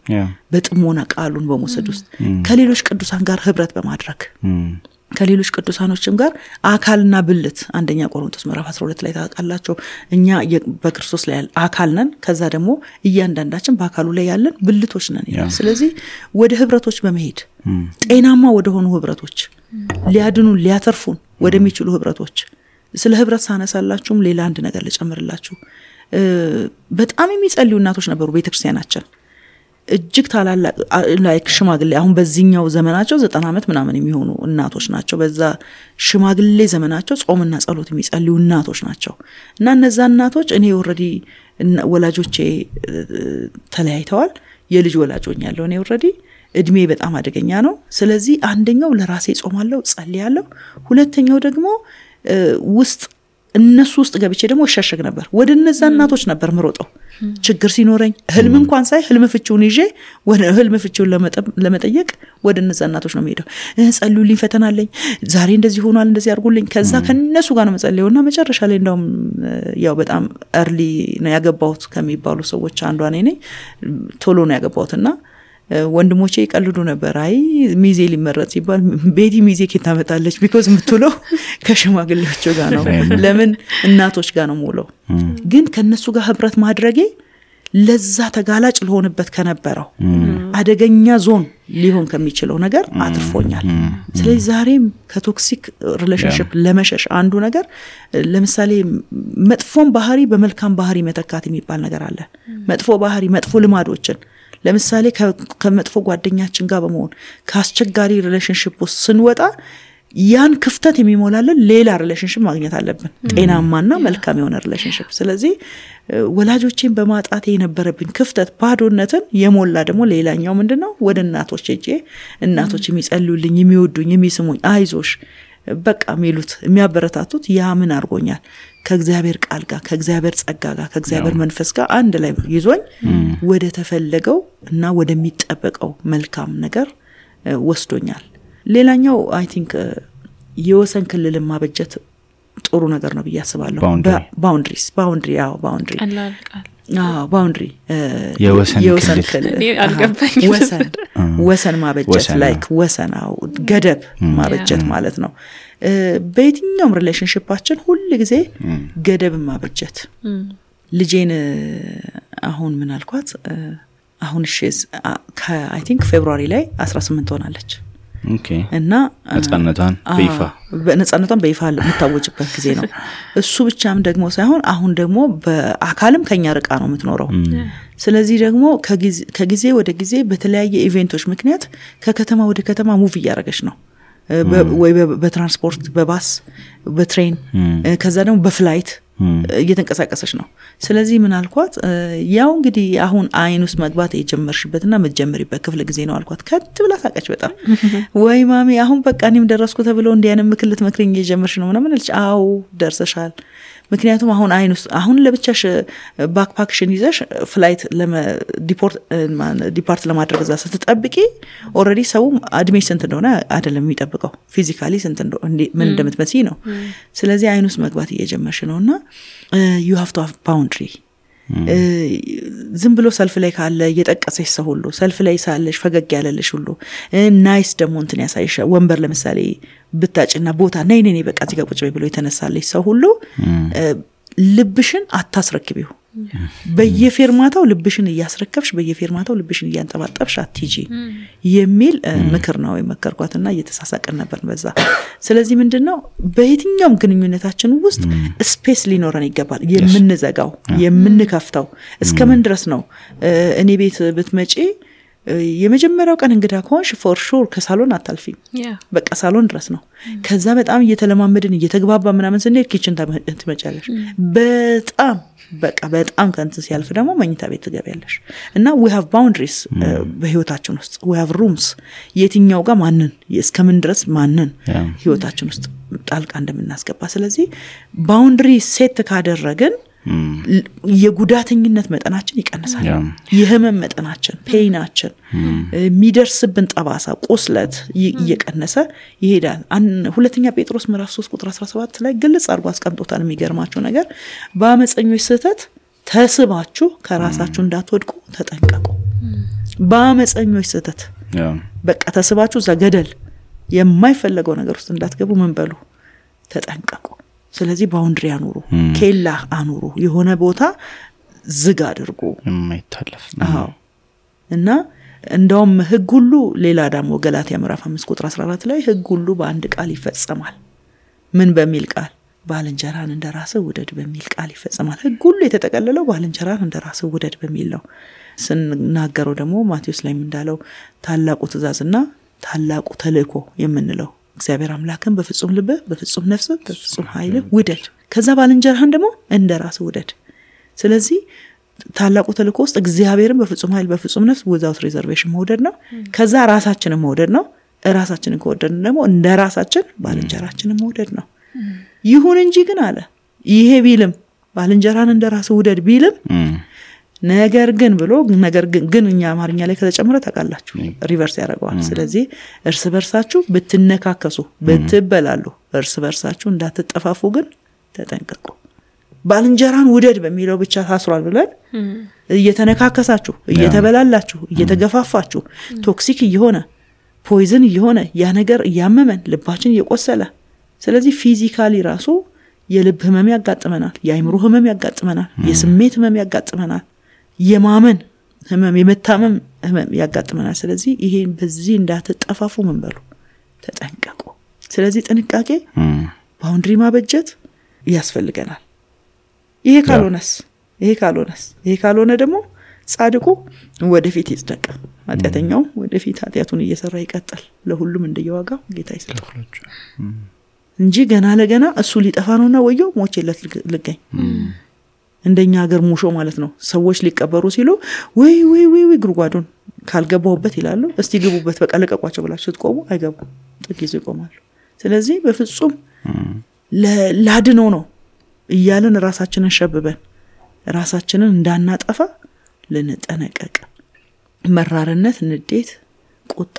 በጥሞና ቃሉን በመውሰድ ውስጥ ከሌሎች ቅዱሳን ጋር ህብረት በማድረግ ከሌሎች ቅዱሳኖችም ጋር አካልና ብልት አንደኛ ቆሮንቶስ ምዕራፍ 12 ላይ ታውቃላችሁ እኛ በክርስቶስ ላይ አካል ነን ከዛ ደግሞ እያንዳንዳችን በአካሉ ላይ ያለን ብልቶች ነን ይላል። ስለዚህ ወደ ህብረቶች በመሄድ ጤናማ ወደ ሆኑ ህብረቶች ሊያድኑን ሊያተርፉን ወደሚችሉ ህብረቶች ስለ ህብረት ሳነሳላችሁም ሌላ አንድ ነገር ልጨምርላችሁ። በጣም የሚጸልዩ እናቶች ነበሩ ቤተክርስቲያናችን እጅግ ታላላቅ ላይክ ሽማግሌ አሁን በዚህኛው ዘመናቸው 90 ዓመት ምናምን የሚሆኑ እናቶች ናቸው። በዛ ሽማግሌ ዘመናቸው ጾምና ጸሎት የሚጸልዩ እናቶች ናቸው። እና እነዛ እናቶች እኔ ኦሬዲ ወላጆቼ ተለያይተዋል የልጅ ወላጆኛለሁ እኔ ኦሬዲ እድሜ በጣም አደገኛ ነው። ስለዚህ አንደኛው ለራሴ ጾማለሁ ጸልያለሁ ሁለተኛው ደግሞ ውስጥ እነሱ ውስጥ ገብቼ ደግሞ እሸሸግ ነበር ወደ እነዛ እናቶች ነበር ምሮጠው ችግር ሲኖረኝ ህልም እንኳን ሳይ ህልም ፍቺውን ይዤ ወደ ህልም ፍቺውን ለመጠየቅ ወደ እነዛ እናቶች ነው የምሄደው። ጸልዩልኝ ፈተና አለኝ ዛሬ እንደዚህ ሆኗል እንደዚህ አድርጉልኝ ከዛ ከነሱ ጋር ነው መጸለየውና መጨረሻ ላይ እንደውም ያው በጣም early ነው ያገባሁት ከሚባሉ ሰዎች አንዷ ነኝ ቶሎ ነው ያገባሁትና ወንድሞቼ ይቀልዱ ነበር አይ ሚዜ ሊመረጥ ሲባል ቤቲ ሚዜ ከታመጣለች because ምትለው ከሽማግሌዎች ጋር ነው ለምን እናቶች ጋር ነው ሞለው ግን ከነሱ ጋር ህብረት ማድረጌ ለዛ ተጋላጭ ለሆነበት ከነበረው አደገኛ ዞን ሊሆን ከሚችለው ነገር አትርፎኛል። ስለዚህ ዛሬም ከቶክሲክ ሪሌሽንሺፕ ለመሸሽ አንዱ ነገር ለምሳሌ መጥፎን ባህሪ በመልካም ባህሪ መተካት የሚባል ነገር አለ። መጥፎ ባህሪ መጥፎ ልማዶችን ለምሳሌ ከመጥፎ ጓደኛችን ጋር በመሆን ከአስቸጋሪ ሪሌሽንሺፕ ውስጥ ስንወጣ ያን ክፍተት የሚሞላልን ሌላ ሪሌሽንሺፕ ማግኘት አለብን ጤናማና መልካም የሆነ ሪሌሽንሺፕ። ስለዚህ ወላጆቼን በማጣቴ የነበረብኝ ክፍተት ባዶነትን የሞላ ደግሞ ሌላኛው ምንድነው ወደ እናቶች ሄጄ እናቶች የሚጸልዩልኝ የሚወዱኝ የሚስሙኝ አይዞሽ በቃ የሚሉት የሚያበረታቱት ያ ምን አርጎኛል ከእግዚአብሔር ቃል ጋር ከእግዚአብሔር ጸጋ ጋር ከእግዚአብሔር መንፈስ ጋር አንድ ላይ ይዞኝ ወደ ተፈለገው እና ወደሚጠበቀው መልካም ነገር ወስዶኛል። ሌላኛው አይ ቲንክ የወሰን ክልል ማበጀት ጥሩ ነገር ነው ብያስባለሁ። ባውንደሪ ባውንደሪ የወሰን ክልል ወሰን ማበጀት ላይክ ወሰናው ገደብ ማበጀት ማለት ነው። በየትኛውም ሪሌሽንሺፓችን ሁሉ ጊዜ ገደብ ማበጀት ልጄን አሁን ምን አልኳት አሁን እሺስ አይ ቲንክ ፌብሩዋሪ ላይ 18 ሆናለች። ኦኬ እና ነፃነቷን በይፋ የምታወጅበት ጊዜ ነው። እሱ ብቻም ደግሞ ሳይሆን አሁን ደግሞ በአካልም ከኛ ርቃ ነው የምትኖረው። ስለዚህ ደግሞ ከጊዜ ወደ ጊዜ በተለያየ ኢቨንቶች ምክንያት ከከተማ ወደ ከተማ ሙቭ እያደረገች ነው ወይ በትራንስፖርት በባስ በትሬን ከዛ ደግሞ በፍላይት እየተንቀሳቀሰች ነው። ስለዚህ ምን አልኳት ያው እንግዲህ አሁን አይን ውስጥ መግባት የጀመርሽበትና መጀመሪበት ክፍለ ጊዜ ነው አልኳት። ከትብላ ታቀች በጣም ወይ ማሚ አሁን በቃ እኔም ደረስኩ ተብሎ እንዲያንም ምክልት መክረኝ እየጀመርሽ ነው ምናምን አለች። አው ደርሰሻል ምክንያቱም አሁን አይን ውስጥ አሁን ለብቻሽ ባክፓክሽን ይዘሽ ፍላይት ዲፓርት ለማድረግ እዛ ስትጠብቂ ኦሬዲ ሰው አድሜሽ ስንት እንደሆነ አይደለም የሚጠብቀው ፊዚካሊ ስንት እንደሆነ ምን እንደምትመስይ ነው። ስለዚህ አይን ውስጥ መግባት እየጀመርሽ ነውና you have to have boundary ዝም ብሎ ሰልፍ ላይ ካለ እየጠቀሰሽ ሰው ሁሉ ሰልፍ ላይ ሳለሽ ፈገግ ያለልሽ ሁሉ ናይስ ደግሞ እንትን ያሳይሽ ወንበር ለምሳሌ ብታጭና ቦታ ነይ ነይ በቃ እዚህ ጋር ቁጭ በይ ብሎ የተነሳለሽ ሰው ሁሉ ልብሽን አታስረክቢው በየፌርማታው ልብሽን እያስረከብሽ በየፌርማታው ልብሽን እያንጠባጠብሽ አትጂ የሚል ምክር ነው የመከርኳትና እየተሳሳቀን ነበር በዛ ስለዚህ ምንድነው በየትኛውም ግንኙነታችን ውስጥ ስፔስ ሊኖረን ይገባል የምንዘጋው የምንከፍተው እስከምን ድረስ ነው እኔ ቤት ብትመጪ የመጀመሪያው ቀን እንግዳ ከሆንሽ ፎር ሹር ከሳሎን አታልፊም በቃ ሳሎን ድረስ ነው ከዛ በጣም እየተለማመድን እየተግባባ ምናምን ስንሄድ ኪችን ትመጫለሽ በጣም ከንት ሲያልፍ ደግሞ መኝታ ቤት ትገቢያለሽ እና we have boundaries በህይወታችን ውስጥ we have rooms የትኛው ጋር ማንን እስከምን ድረስ ማንን ህይወታችን ውስጥ ጣልቃ እንደምናስገባ ስለዚህ boundary set ካደረግን የጉዳተኝነት መጠናችን ይቀንሳል የህመም መጠናችን ፔይናችን የሚደርስብን ጠባሳ ቁስለት እየቀነሰ ይሄዳል ሁለተኛ ጴጥሮስ ምዕራፍ 3 ቁጥር 17 ላይ ግልጽ አድርጎ አስቀምጦታል የሚገርማችሁ ነገር በአመፀኞች ስህተት ተስባችሁ ከራሳችሁ እንዳትወድቁ ተጠንቀቁ በአመፀኞች ስህተት በቃ ተስባችሁ እዛ ገደል የማይፈለገው ነገር ውስጥ እንዳትገቡ ምን በሉ ተጠንቀቁ ስለዚህ ባውንድሪ አኑሩ ኬላ አኑሩ የሆነ ቦታ ዝግ አድርጉ የማይታለፍ እና እንደውም ህግ ሁሉ ሌላ ደግሞ ገላትያ ምዕራፍ 5 ቁጥር 14 ላይ ህግ ሁሉ በአንድ ቃል ይፈጸማል ምን በሚል ቃል ባልንጀራን እንደራስህ ውደድ በሚል ቃል ይፈጸማል ህግ ሁሉ የተጠቀለለው ባልንጀራን እንደራስህ ውደድ በሚል ነው ስንናገረው ደግሞ ማቴዎስ ላይ እንዳለው ታላቁ ትእዛዝና ታላቁ ተልእኮ የምንለው እግዚአብሔር አምላክን በፍጹም ልብ በፍጹም ነፍስ በፍጹም ኃይል ውደድ ከዛ ባልንጀራህን ደግሞ እንደራስህ ውደድ ስለዚህ ታላቁ ተልእኮ ውስጥ እግዚአብሔርን በፍጹም ኃይል በፍጹም ነፍስ without reservation መውደድ ነው ከዛ ራሳችንን መውደድ ነው ራሳችንን ከወደድን ደግሞ እንደራሳችን ባልንጀራችንን መውደድ ነው ይሁን እንጂ ግን አለ ይሄ ቢልም ባልንጀራን እንደራስህ ውደድ ቢልም ነገር ግን እኛ አማርኛ ላይ ከተጨመረ ታውቃላችሁ ሪቨርስ ያደርጋል ስለዚህ እርስ በርሳችሁ ብትነካከሱ ብትበላሉ እርስ በርሳችሁ እንዳትጠፋፉ ግን ተጠንቀቁ ባልንጀራን ውደድ በሚለው ብቻ ታስሯል ብለን እየተነካከሳችሁ እየተበላላችሁ እየተገፋፋችሁ ቶክሲክ እየሆነ ፖይዝን እየሆነ ያ ነገር ያመመን ልባችን እየቆሰለ ስለዚህ ፊዚካሊ ራሱ የልብ ህመም ያጋጥመናል የአይምሮ ህመም ያጋጥመናል የስሜት ህመም ያጋጥመናል የማመን ህመም የመታመም ህመም ያጋጥመናል ስለዚህ ይሄ በዚህ እንዳትጠፋፉ ምን በሉ ተጠንቀቁ ስለዚህ ጥንቃቄ ባውንድሪ ማበጀት ያስፈልገናል ይሄ ካልሆነ ደግሞ ጻድቁ ወደፊት ይጽደቅ ኃጢአተኛው ወደፊት ኃጢአቱን እየሰራ ይቀጥል ለሁሉም እንደየዋጋው ጌታ ይስጠው እንጂ ገና ለገና እሱ ሊጠፋ ነውና ወየው ሞቼለት ልገኝ እንደኛ ሀገር ሙሾ ማለት ነው ሰዎች ሊቀበሩ ሲሉ ወይ ጉርጓዱን ካልገባውበት ይላሉ እስቲ ግቡበት በቃ ለቀቋቸው ብላችሁ ስትቆሙ አይገቡ ጥቂት ይቆማሉ ስለዚህ በፍጹም ለላድነው ነው እያለን ራሳችንን ሸብበን ራሳችንን እንዳናጠፋ ልንጠነቀቅ መራርነት ንዴት ቁጣ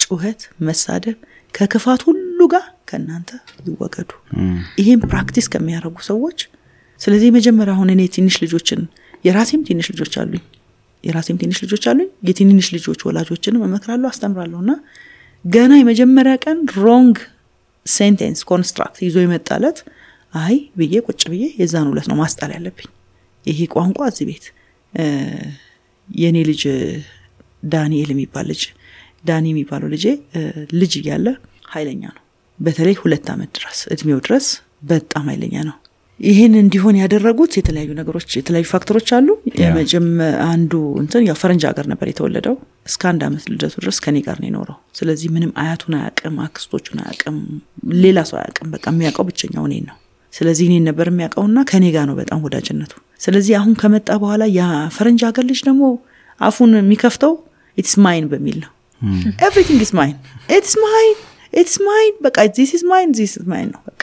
ጩኸት መሳደብ ከክፋት ሁሉ ጋር ከናንተ ይወገዱ ይሄን ፕራክቲስ ከሚያደርጉ ሰዎች ስለዚህ መጀመሪያ ሆነ እኔ ትንሽ ልጆችን የራሴም ትንሽ ልጆች አሉኝ የትንሽ ልጆች ወላጆችን መመክራለሁ አስተምራለሁና ገና የመጀመሪያ ቀን ሮንግ ሴንቴንስ ኮንስትራክት ይዞ ይመጣለት አይ ብዬ ቁጭ ብዬ የዛን ሁለት ነው ማስጣል ያለብኝ ይሄ ቋንቋ እዚህ ቤት የኔ ልጅ ዳንኤል የሚባለው ልጅ ያለ ኃይለኛ ነው በተለይ 2 አመት ድረስ እድሜው ድረስ በጣም ኃይለኛ ነው ይሄን እንዲሆን ያደረጉት የተለያዩ ፋክተሮች አሉ አንዱ ያው ፈረንጅ ሀገር ነበር የተወለደው እስከ 1 አመት ልደቱ ድረስ ከኔ ጋር ነው የኖረው ስለዚህ ምንም አያቱን አያውቅም አክስቶቹን አያውቅም ሌላ ሰው አያውቅም በቃ የሚያውቀው ብቻኛው እኔን ነው ስለዚህ እኔን ነበር የሚያውቀውና ከኔ ጋር ነው በጣም ወዳጅነቱ ስለዚህ አሁን ከመጣ በኋላ ያ ፈረንጅ ሀገር ልጅ ደግሞ አፉን የሚከፍተው it's mine በሚል ነው everything is mine it's mine በቃ this is mine ነው በቃ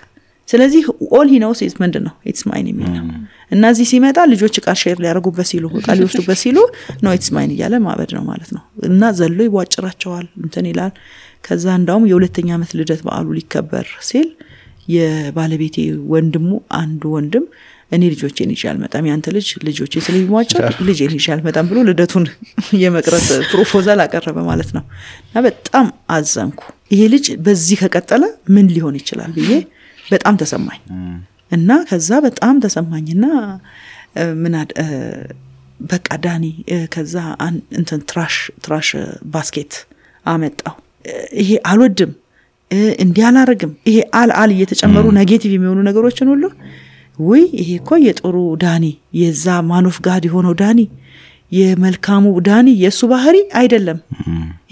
ስለዚህ all he knows is ምንድነው it's mine የሚል ነው እና እዚህ ሲመጣ ልጆች ቃል ሼር ሊያደርጉበት ሲሉ ቃል ይወስዱበት ሲሉ no it's mine እያለ ማበድ ነው ማለት ነው እና ዘሎ ይዋጭራቸዋል ይላል ከዛ እንዳውም የሁለተኛ አመት ልደት በዓሉ ሊከበር ሲል የባለቤቴ ወንድሙ አንዱ ወንድም እኔ ልጆቼን ይዤ አልመጣም ያንተ ልጆቼ ስለሚዋጫ ልጄን ይዤ አልመጣም ብሎ ልደቱን የመቅረት ፕሮፖዛል አቀረበ ማለት ነው። እና በጣም አዘንኩ። ይሄ ልጅ በዚህ ከቀጠለ ምን ሊሆን ይችላል ብዬ በጣም ተሰማኝ። እና ከዛ በጣም ተሰማኝና ምን በቃ ዳኒ ከዛ እንትን ትራሽ ባስኬት አመጣው። ይሄ አልወድም እንዲያላረግም ይሄ አል እየተጨመሩ ኔጌቲቭ የሚሆኑ ነገሮችን ሁሉ ወይ ይሄ እኮ የጦሩ ዳኒ የዛ ማኖፍ ጋድ የሆነው ዳኒ የመልካሙ ዳኒ የሱ ባህሪ አይደለም።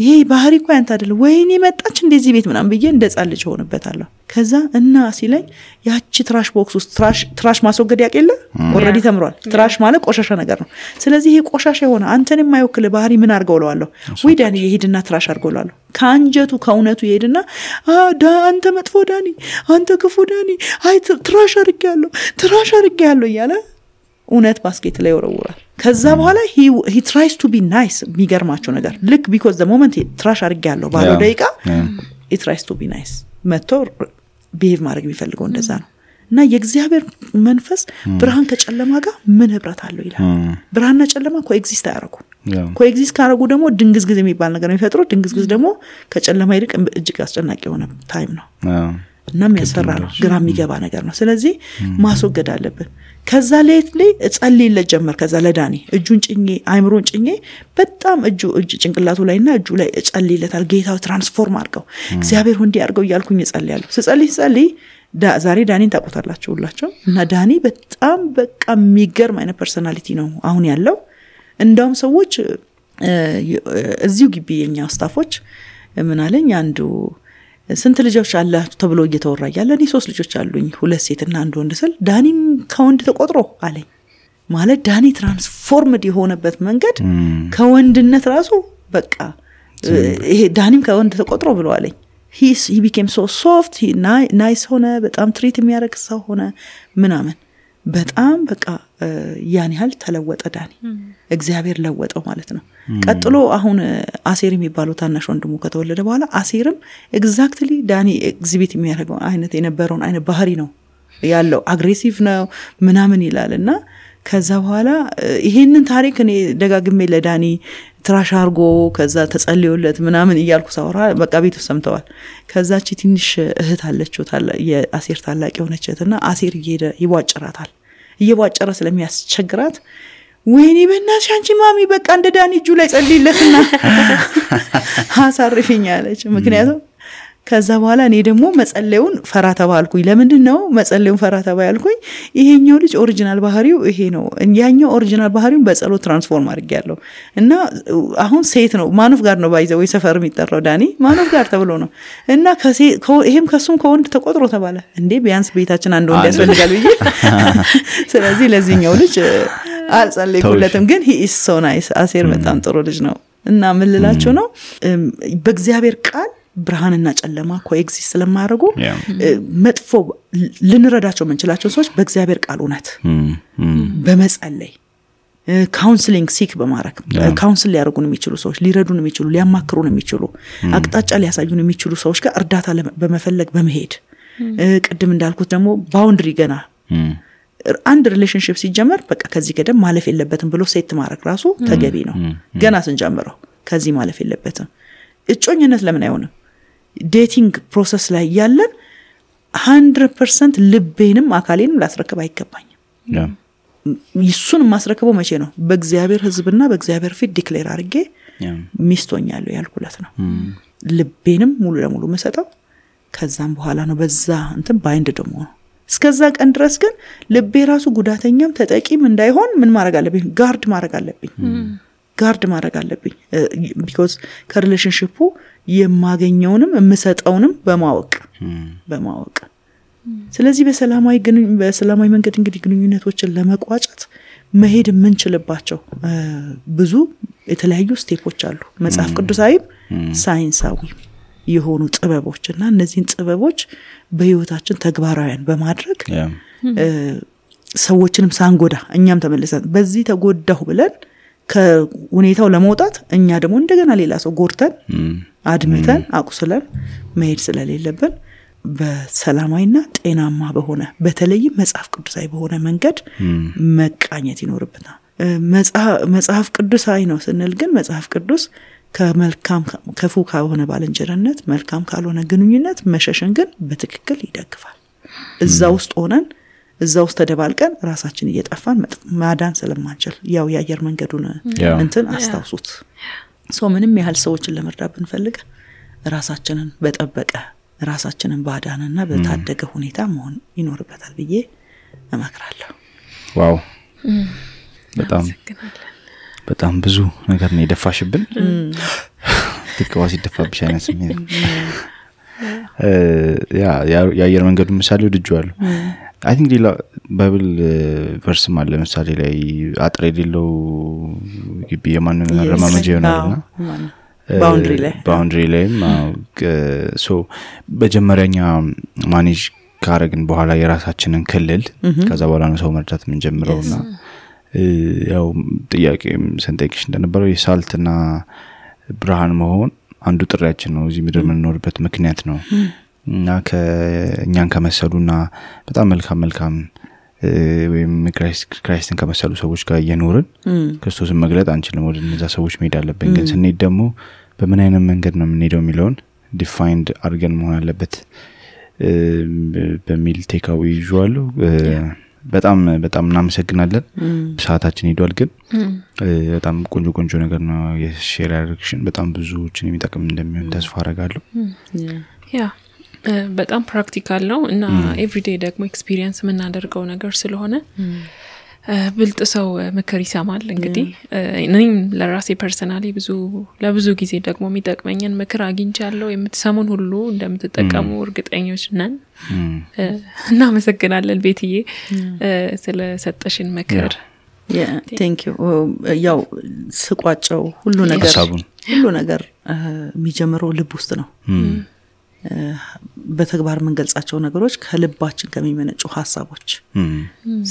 ይሄ ባህሪ እኮ ያንተ አይደለም። ወይኔ መጣች እንደዚህ ቤት ምናምን ብዬ እንደጻልጅ ሆነበታለሁ። ከዛ እና ሲለኝ ያቺ ትራሽ ቦክስ ውስጥ ትራሽ ማስወገድ ያቀለ ኦሬዲ ተምሯል። ትራሽ ማለት ቆሻሻ ነገር ነው። ስለዚህ ይሄ ቆሻሻ የሆነ አንተን የማይወክል ባህሪ ምን አርገውለዋለሁ? ወይ ዳኒ ይሄድና ትራሽ አርገውለዋለሁ። ካንጀቱ ከእውነቱ ይሄድና አንተ መጥፎ ዳኒ፣ አንተ ክፉ ዳኒ፣ አይ ትራሽ አርገያለሁ እያለ እውነት ባስኬት ላይ ወረውራል። ከዛ በኋላ he tries to be nice የሚገርማቸው ነገር ልክ because the moment ትራሽ አርገያለሁ ባለው ደቂቃ he tries to be nice መጥቶ behave ማድረግ የሚፈልገው እንደዛ ነው። እና የእግዚአብሔር መንፈስ ብርሃን ከጨለማ ጋር ምን ህብረት አለው ይላል። ብርሃንና ጨለማ ኮኤግዚስት ያደርጉ ኮኤግዚስት ካደረጉ ደግሞ ድንግዝግዝ የሚባል ነገር ነው የሚፈጥሩ። ድንግዝግዝ ደግሞ ከጨለማ ይልቅ እጅግ አስጨናቂ የሆነ ታይም ነው እና የሚያስፈራ ነው፣ ግራ የሚገባ ነገር ነው። ስለዚህ ማስወገድ አለብን። ከዛ ሌት ላይ ጸልይለት ጀመር። ከዛ ለዳኒ እጁን ጭኜ አይምሮን ጭኜ በጣም እጅ ጭንቅላቱ ላይና እጁ ላይ ጸልይለታል። ጌታው ትራንስፎርም አድርገው እግዚአብሔር ሁንዲ አድርገው እያልኩኝ ጸልያለሁ። ስጸልይ ዛሬ ዳኒን ታውቁታላችሁ ሁላችሁ። እና ዳኒ በጣም በቃ የሚገርም አይነት ፐርሰናሊቲ ነው አሁን ያለው። እንደውም ሰዎች እዚሁ ግቢ የኛ ስታፎች ምን አለኝ አንዱ ስንት ልጆች አላችሁ ተብሎ እየተወራ ያለ እኔ 3 ልጆች አሉኝ 2 ሴትና 1 ወንድ ስል ዳኒም ከወንድ ተቆጥሮ አለኝ። ማለት ዳኒ ትራንስፎርምድ የሆነበት መንገድ ከወንድነት ራሱ በቃ ይሄ ዳኒም ከወንድ ተቆጥሮ ብሎ አለኝ። he became so soft, he nice ሆነ፣ በጣም ትሪት የሚያደርግ ሰው ሆነ ምናምን በጣም በቃ ያን ያህል ተለወጠ ዳኒ። እግዚአብሔር ለወጠው ማለት ነው። ቀጥሎ አሁን አሴር የሚባለው ታናሽ ወንድሙ ከተወለደ በኋላ አሴርም ኤግዛክትሊ ዳኒ ኤግዚቢት የሚያደርገው አይነት የነበረውን አይነት ባህሪ ነው ያለው። አግሬሲቭ ነው ምናምን ይላልና ከዛ በኋላ ይሄንን ታሪክ እኔ ደጋግሜ ለዳኒ ትራሽ አርጎ ከዛ ተጸልዮለት ምናምን እያልኩ ሳወራ በቃ ቤቱ ሰምተዋል። ከዛቺ ትንሽ እህት አለችው የአሴር ታላቅ የሆነችና አሴር ይዋጭራታል። እየዋጨረ ስለሚያስቸግራት ወይኔ በእናትሽ አንቺ ማሚ በቃ እንደ ዳኒ እጁ ላይ ጸልይለትና አሳርፊኝ አለች። ምክንያቱም ከዛ በኋላ እኔ ደግሞ መጸለዩን ፈራ ተባልኩኝ። ለምንድን ነው መጸለዩን ፈራ ተባልኩኝ? ይሄኛው ልጅ ኦሪጂናል ባህሪው ይሄ ነው፣ ያኛው ኦሪጂናል ባህሪውን በጸሎት ትራንስፎርም አድርጌያለሁ። እና አሁን ሴት ነው ማኑፍ ጋር ነው ባይዘው ሰፈር የሚጠራው ዳኒ ማኑፍ ጋር ተብሎ ነው። እና ይሄም ከሱም ከወንድ ተቆጥሮ ተባለ። እንዴ ቢያንስ ቤታችን አንድ ወንድ ያስፈልጋል ብዬ ስለዚህ ለዚህኛው ልጅ አልጸለይኩለትም። ግን he is so nice አሴር በጣም ጥሩ ልጅ ነው። እና ምን ልላችሁ ነው በእግዚአብሔር ቃል ብርሃንና ጨለማ ኮኤግዚስት ስለማያደርጉ መጥፎ ልንረዳቸው የምንችላቸው ሰዎች በእግዚአብሔር ቃል እውነት በመጸለይ ካውንስሊንግ ሲክ በማድረግ ካውንስል ሊያደርጉን የሚችሉ ሰዎች ሊረዱን የሚችሉ ሊያማክሩን የሚችሉ አቅጣጫ ሊያሳዩን የሚችሉ ሰዎች ጋር እርዳታ በመፈለግ በመሄድ ቅድም እንዳልኩት ደግሞ ባውንድሪ ገና አንድ ሪሌሽንሺፕ ሲጀመር በቃ ከዚህ ገደም ማለፍ የለበትም ብሎ ሴት ማድረግ ራሱ ተገቢ ነው። ገና ስንጀምረው ከዚህ ማለፍ የለበትም። እጮኝነት ለምን አይሆንም? ዴቲንግ ፕሮሰስ ላይ ያለን 100% ልቤንም አካሌንም ላስረከብ አይገባኝም። ይሱን ማስረከበው መቼ ነው? በእግዚአብሔር ሕዝብና በእግዚአብሔር ፊት ዲክሌር አድርጌ ሚስቶኛለሁ ያልኩለት ነው። ልቤንም ሙሉ ለሙሉ መሰጠው ከዛም በኋላ ነው በዛ እንትን ባይንድ ደሞ ነው። እስከዛ ቀን ድረስ ግን ልቤ ራሱ ጉዳተኛም ተጠቂም እንዳይሆን ምን ማድረግ አለብኝ? ጋርድ ማድረግ አለብኝ because ከሪሌሽንሺፑ የማገኘውንም የምሰጠውንም በማወቅ ስለዚህ በሰላማዊ መንገድ እንግዲህ ግንኙነቶችን ለመቋጨት መሄድ የምንችልባቸው ብዙ የተለያዩ ስቴፖች አሉ። መጽሐፍ ቅዱሳዊም ሳይንሳዊ የሆኑ ጥበቦችና እነዚህን ጥበቦች በህይወታችን ተግባራዊያን በማድረግ ሰዎችንም ሳንጎዳ እኛም ተመልሰን በዚህ ተጎዳሁ ብለን ከሁኔታው ለመውጣት እኛ ደግሞ እንደገና ሌላ ሰው ጎርተን አድምተን አቁስለን መሄድ ስለሌለብን በሰላማዊና ጤናማ በሆነ በተለይም መጽሐፍ ቅዱሳዊ በሆነ መንገድ መቃኘት ይኖርብናል። መጽሐፍ ቅዱሳዊ ነው ስንል ግን መጽሐፍ ቅዱስ ከመልካም ከፉ ከሆነ ባልንጀርነት መልካም ካልሆነ ግንኙነት መሸሽን ግን በትክክል ይደግፋል። እዛ ውስጥ ሆነን እዛ ውስጥ ተደባልቀን ራሳችን እየጠፋን ማዳን ስለማንችል ያው የአየር መንገዱን እንትን አስታውሱት። ምንም ያህል ሰዎችን ለመርዳት ብንፈልግ ራሳችንን በጠበቀ ራሳችንን ባዳንና በታደገ ሁኔታ መሆን ይኖርበታል ብዬ እመክራለሁ። ዋው በጣም ብዙ ነገር ነው የደፋሽብን። ትክዋስ ይደፋብሽ አይነት ስሜት የአየር መንገዱ ምሳሌ ወድጄዋለሁ። I think ሌላ ባይብል ቨርስ ማለት ለምሳሌ ላይ አጥር የሌለው ግቢ የማንም መረማመጃ ይሆናልና ባውንድሪ ላይ ሶ በመጀመሪያኛ ማኔጅ ካረግን በኋላ የራሳችንን ክልል ከዛ በኋላ ነው ሰው መርዳት ምን ጀምረውና ያው ጥያቄም ሰንጠቅሽ እንደነበረው የሳልትና ብርሃን መሆን አንዱ ጥሪያችን ነው። እዚህ ምድር የምንኖርበት ምክንያት ነው እና ከኛን ከመሰሉና በጣም መልካም ወይም ክራይስትን ከመሰሉ ሰዎች ጋር እየኖርን ክርስቶስን መግለጥ አንችልም። ወደ እነዛ ሰዎች መሄድ አለብን። ግን ስንሄድ ደግሞ በምን አይነት መንገድ ነው የምንሄደው የሚለውን ዲፋይንድ አድርገን መሆን አለበት በሚል ቴካዊ ይዟል። በጣም እናመሰግናለን። ሰዓታችን ሄዷል። ግን በጣም ቆንጆ ነገር ነው የሼር ያደረግሽን። በጣም ብዙዎችን የሚጠቅም እንደሚሆን ተስፋ አደርጋለሁ። በጣም ፕራክቲካል ነው እና ኤቭሪዴይ ደግሞ ኤክስፒሪየንስ የምናደርገው ነገር ስለሆነ ብልጥ ሰው ምክር ይሰማል። እንግዲህ እኔም ለራሴ ፐርሰናሊ ለብዙ ጊዜ ደግሞ የሚጠቅመኝን ምክር አግኝቻለሁ። የምትሰሙን ሁሉ እንደምትጠቀሙ እርግጠኞች ነን። እናመሰግናለን ቤትዬ ስለሰጠሽን ምክር። thank you። ያው ስቋጨው ሁሉ ነገር የሚጀምረው ልብ ውስጥ ነው። በተግባር መንገልጻቸው ነገሮች ከልባችን ከሚመነጩ ሐሳቦች።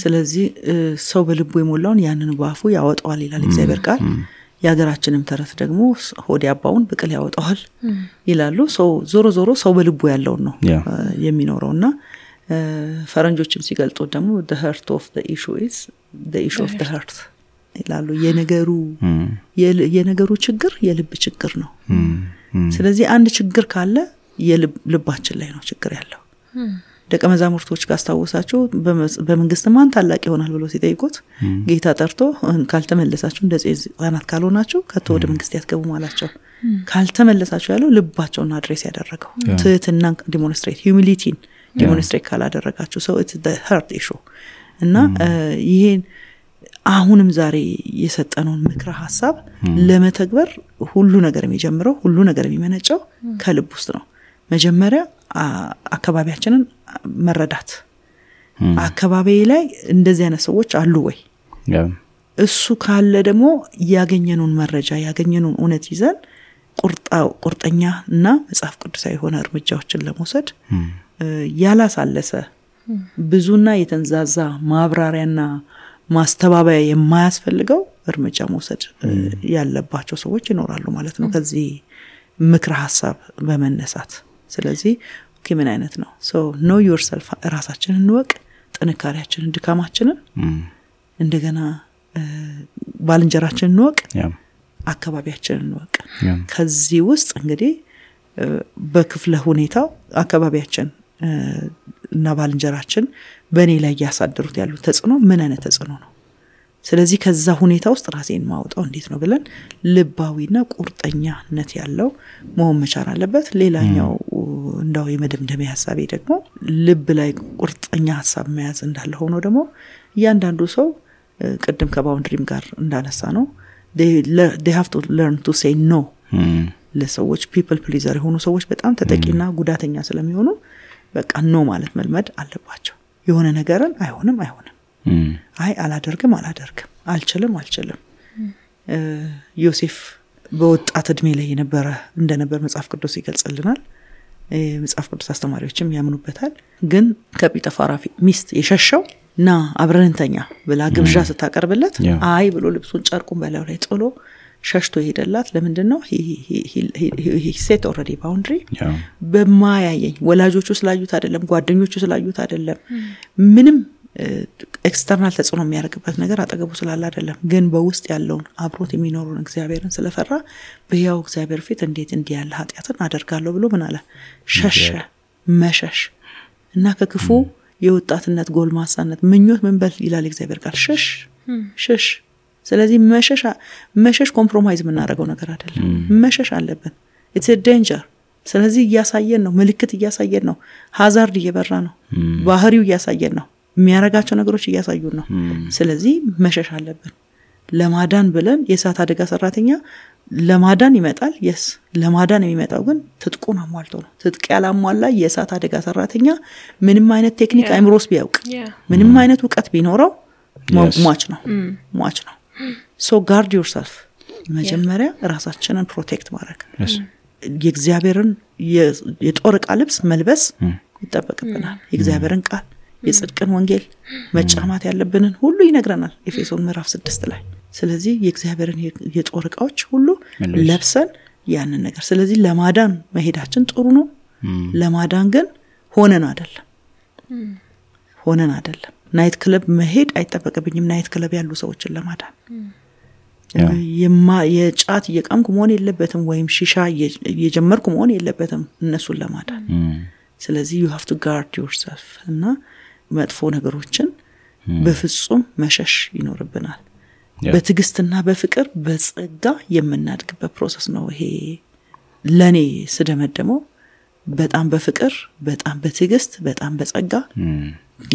ስለዚህ ሰው በልቡ የሞላውን ያንን ባፉ ያወጣዋል ይላል እግዚአብሔር ቃል። ያገራችንም ተረት ደግሞ ሆድ ያባውን ብቅል ያወጣዋል ይላሉ። ዞሮ ሰው በልቡ ያለውን ነው የሚኖረውና ፈረንጆችም ሲገልጡ ደግሞ the heart of the issue is the issue of the heart ይላሉ። የነገሩ ችግር የልብ ችግር ነው። ስለዚህ አንድ ችግር ካለ የልባችን ላይ ነው ችግር ያለው። ደቀ መዛሙርቶች ካስታወሳችሁ በመንግስት ማን ታላቅ ይሆናል ብሎ ሲጠይቁት ጌታ ጠርቶ ካልተመለሳችሁ እንደዚህ ህፃናት ካልሆናችሁ ከቶ ወደ መንግስት ያትገቡ አላቸው። ካልተመለሳችሁ ያለው ልባቸውን አድሬስ ያደረገው ትህትናን humility ዲሞንስትሬት ካላደረጋችሁ so it's the heart issue እና ይሄን አሁንም ዛሬ የሰጠነውን ምክረ ሐሳብ ለመተግበር ሁሉ ነገር የሚጀምረው ሁሉ ነገር የሚመነጨው ከልብ ውስጥ ነው። መጀመሪያ አካባቢያችንን መረዳት። አካባቢ ላይ እንደዚህ አይነት ሰዎች አሉ ወይ? እሱ ካለ ደግሞ ያገኘነውን መረጃ ያገኘነውን እውነት ይዘን ቁርጠኛና መጽሐፍ ቅዱሳዊ የሆነ እርምጃዎችን ለመውሰድ ያላሳለሰ ብዙና የተንዛዛ ማብራሪያና ማስተባበያ የማያስፈልገው እርምጃ መውሰድ ያለባቸው ሰዎች ይኖራሉ ማለት ነው ከዚህ ምክረ ሐሳብ በመነሳት። ስለዚህ ምን አይነት ነው know yourself ራሳችንን እንወቅ፣ ጥንካሬያችንን ድካማችንን እንደገና ባልንጀራችንን እንወቅ፣ አካባቢያችንን እንወቅ። ከዚህ ውስጥ እንግዲህ በክፍለ ሁኔታው አካባቢያችን እና ባልንጀራችን በእኔ ላይ ያሳደሩት ያሉ ተጽዕኖ ምን አይነት ተጽዕኖ ነው? ስለዚህ ከዛ ሁኔታ ውስጥ ራሴን ማውጣው እንዴት ነው ብለን ልባዊና ቁርጠኛነት ያለው መሆን መቻል አለበት። ሌላኛው እንዳው የመደምደሚያ ሐሳቤ ደግሞ ልብ ላይ ቁርጠኛ ሐሳብ መያዝ እንዳለ ሆኖ ደግሞ እያንዳንዱ ሰው ቅድም ከባውንድሪም ጋር እንዳነሳ ነው they have to learn to say no ለሰዎች people pleaser የሆኑ ሰዎች በጣም ተጠቂና ጉዳተኛ ስለሚሆኑ በቃ ነው ማለት መልመድ አለባቸው። የሆነ ነገርን አይሆንም አይ አላደርግም አልችልም ዮሴፍ በወጣት እድሜ ላይ እንደነበር መጽሐፍ ቅዱስ ይገልጽልናል። መጽሐፍ ቅዱስ አስተማሪዎችም ያምኑበታል። ግን ከጲጠፋራ ሚስት የሸሸው ና አብረንተኛ ብላ ግብዣ ስታቀርብለት አይ ብሎ ልብሱን ጨርቁን በላዩ ላይ ጥሎ ሸሽቶ ይሄደላት ለምንድነው he set already boundary በማያየኝ ወላጆቹ ስላዩት አይደለም ጓደኞቹ ስላዩት አይደለም ምንም ኤክስተርናል ተጽዕኖ የሚያደርግበት ነገር አጠገቡ ስላለ አይደለም ግን በውስጥ ያለውን አብሮት የሚኖሩን እግዚአብሔርን ስለፈራ በያው እግዚአብሔር ፊት እንዴት እንዲያለ ኃጢያትን አደርጋለሁ ብሎ ምን አለ ሸሸ መሸሽ እና ከክፉ የወጣትነት ጎልማሳነት ምኞት ምን በል ይላል እግዚአብሔር ቃል ሸሽ ስለዚህ መሸሽ ኮምፕሮማይዝ የምናደርገው ነገር አይደለም መሸሽ አለብን it's a danger ስለዚህ እያሳየን ነው ምልክት እያሳየን ነው ሃዛርድ እየበራ ነው ባህሪው እያሳየን ነው የሚያረጋቸው ነገሮች እያሳዩን ነው ስለዚህ መሸሽ አለብን ለማዳን ብለን የእሳት አደጋ ሰራተኛ ለማዳን ይመጣል yes ለማዳን የሚመጣው ግን ትጥቁን አሟልቶ ነው ትጥቅ ያላሟላ የእሳት አደጋ ሰራተኛ ምንም አይነት ቴክኒክ አይምሮስ ቢያውቅ ምንም አይነት ዕውቀት ቢኖረው ሟች ነው so guard yourself መጀመሪያ ራሳችንን ፕሮቴክት ማድረግ የእግዚአብሔርን የጦር ዕቃ ልብስ መልበስ ይጠበቅብናል የእግዚአብሔርን ቃል የጽድቅን ወንጌል መጫማት ያለብንን ሁሉ ይነግረናል ኤፌሶን ምዕራፍ 6 ላይ ስለዚህ የእግዚአብሔርን የጦር ዕቃዎች ሁሉ ለብሰን ያንን ነገር ስለዚህ ለማዳን መሄዳችን ጥሩ ነው ለማዳን ግን ሆነን አይደለም ናይት ክለብ መሄድ አይጠበቅብኝም ናይት ክለብ ያሉ ሰዎችን ለማዳን የጫት የቃምኩ መሆን የለበትም ወይም ሺሻ የጀመርኩ መሆን የለበትም እነሱን ለማዳን ስለዚህ you have to guard yourself እና መጥፎ ነገሮችን በፍጹም መሸሽ ይኖርብናል በትግስትና በፍቅር በጸጋ የምናድግበት ፕሮሰስ ነው ይሄ ለኔ ስደመደመው በጣም በፍቅር በጣም በትግስት በጣም በጸጋ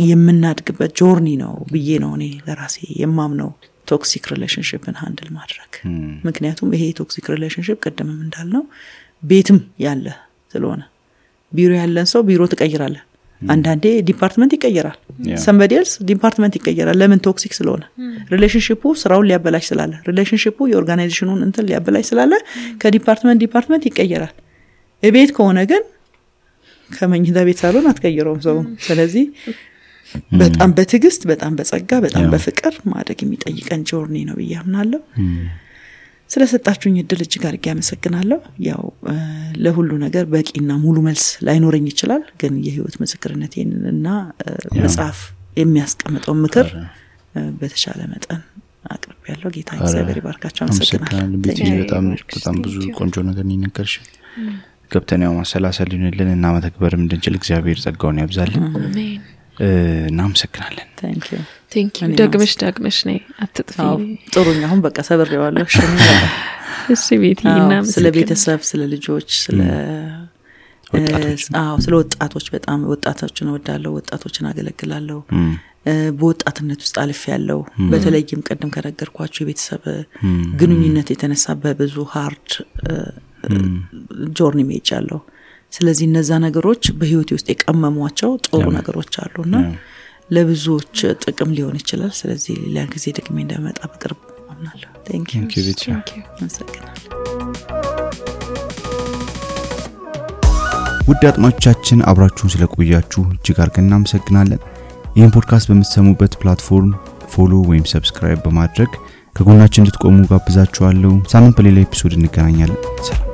የምናድግበት ጆርኒ ነው ብዬ ነው እኔ ለራሴ የማምነው ቶክሲክ ሪሌሽንሺፕን ሃንድል ማድረግ ምክንያቱም ይሄ ቶክሲክ ሪሌሽንሺፕ ቀደምም እንዳልነው ቤትም ያለ ስለሆነ ቢሮ ያለን ሰው ቢሮ ተቀይራለ አንዳንዴ ዲፓርትመንት ይቀየራል somebody else ዲፓርትመንት ይቀየራል ለምን ቶክሲክ ስለሆነ ሪሌሽንሺፑ ስራውን ሊያበላሽ ስላለ ሪሌሽንሺፑ የኦርጋናይዜሽኑን እንትን ሊያበላሽ ስላለ ከዲፓርትመንት ይቀየራል እቤት ከሆነ ግን ከመኝታ ቤት ሳሎን አትቀይረውም ሰው ስለዚህ በጣም በትግስት በጣም በጸጋ በጣም በፍቅር ማደግ የሚጠይቀን ጆርኒ ነው ብያምናለሁ ስለሰጣችሁኝ እድል እጅግ አድርጌ አመሰግናለሁ ያው ለሁሉ ነገር በቂና ሙሉ መልስ ላይኖርኝ ይችላል ግን የህይወት ምስክርነቴንና መጽሐፍ የሚያስቀምጠው ምክር በተሻለ መጠን አቅርቤያለሁ ጌታ እግዚአብሔር ይባርካችሁ አመሰግናለሁ በጣም ብዙ ቆንጆ ነገር ንነከርሽ ገብተን ያው ማሰላሰልን እና መተግበርም እንድንችል እግዚአብሔር ጸጋውን ያብዛልን አሜን እናመሰግናለን thank you ደግመሽ ነይ አትጥፊ ጥሩኛ አሁን በቃ ሰብሬዋለሁ እሺ ቤቲና ስለ ቤተሰብ ስለ ልጆች ስለ ወጣቶች በጣም ወጣቶችን እወዳለሁ ወጣቶችን አገለግላለሁ በወጣትነት ውስጥ አልፍ ያለው በተለይም ቀደም ከነገርኳችሁ የቤተሰብ ግንኙነት የተነሳ በብዙ ሃርድ ጆርኒ ሜጃለሁ ስለዚህ እነዛ ነገሮች በህይወቴ ውስጥ የቀመሟቸው ጥሩ ነገሮች አሉና ለብዙዎች ጥቅም ሊሆን ይችላል ስለዚህ ሌላ ጊዜ ደግሜ እንደመጣ በቅርብ አምናለሁ thank you ውድ አጥማጮቻችን አብራችሁን ስለቆያችሁ እጅግ አድርገን እናመሰግናለን ይህን ፖድካስት በምትሰሙበት ፕላትፎርም ፎሎ ወይም ሰብስክራይብ በማድረግ ከጎናችን እንድትቆሙ ጋብዛችኋለሁ ሳምንት በሌላ ኤፒሶድ እንገናኛለን ሰላም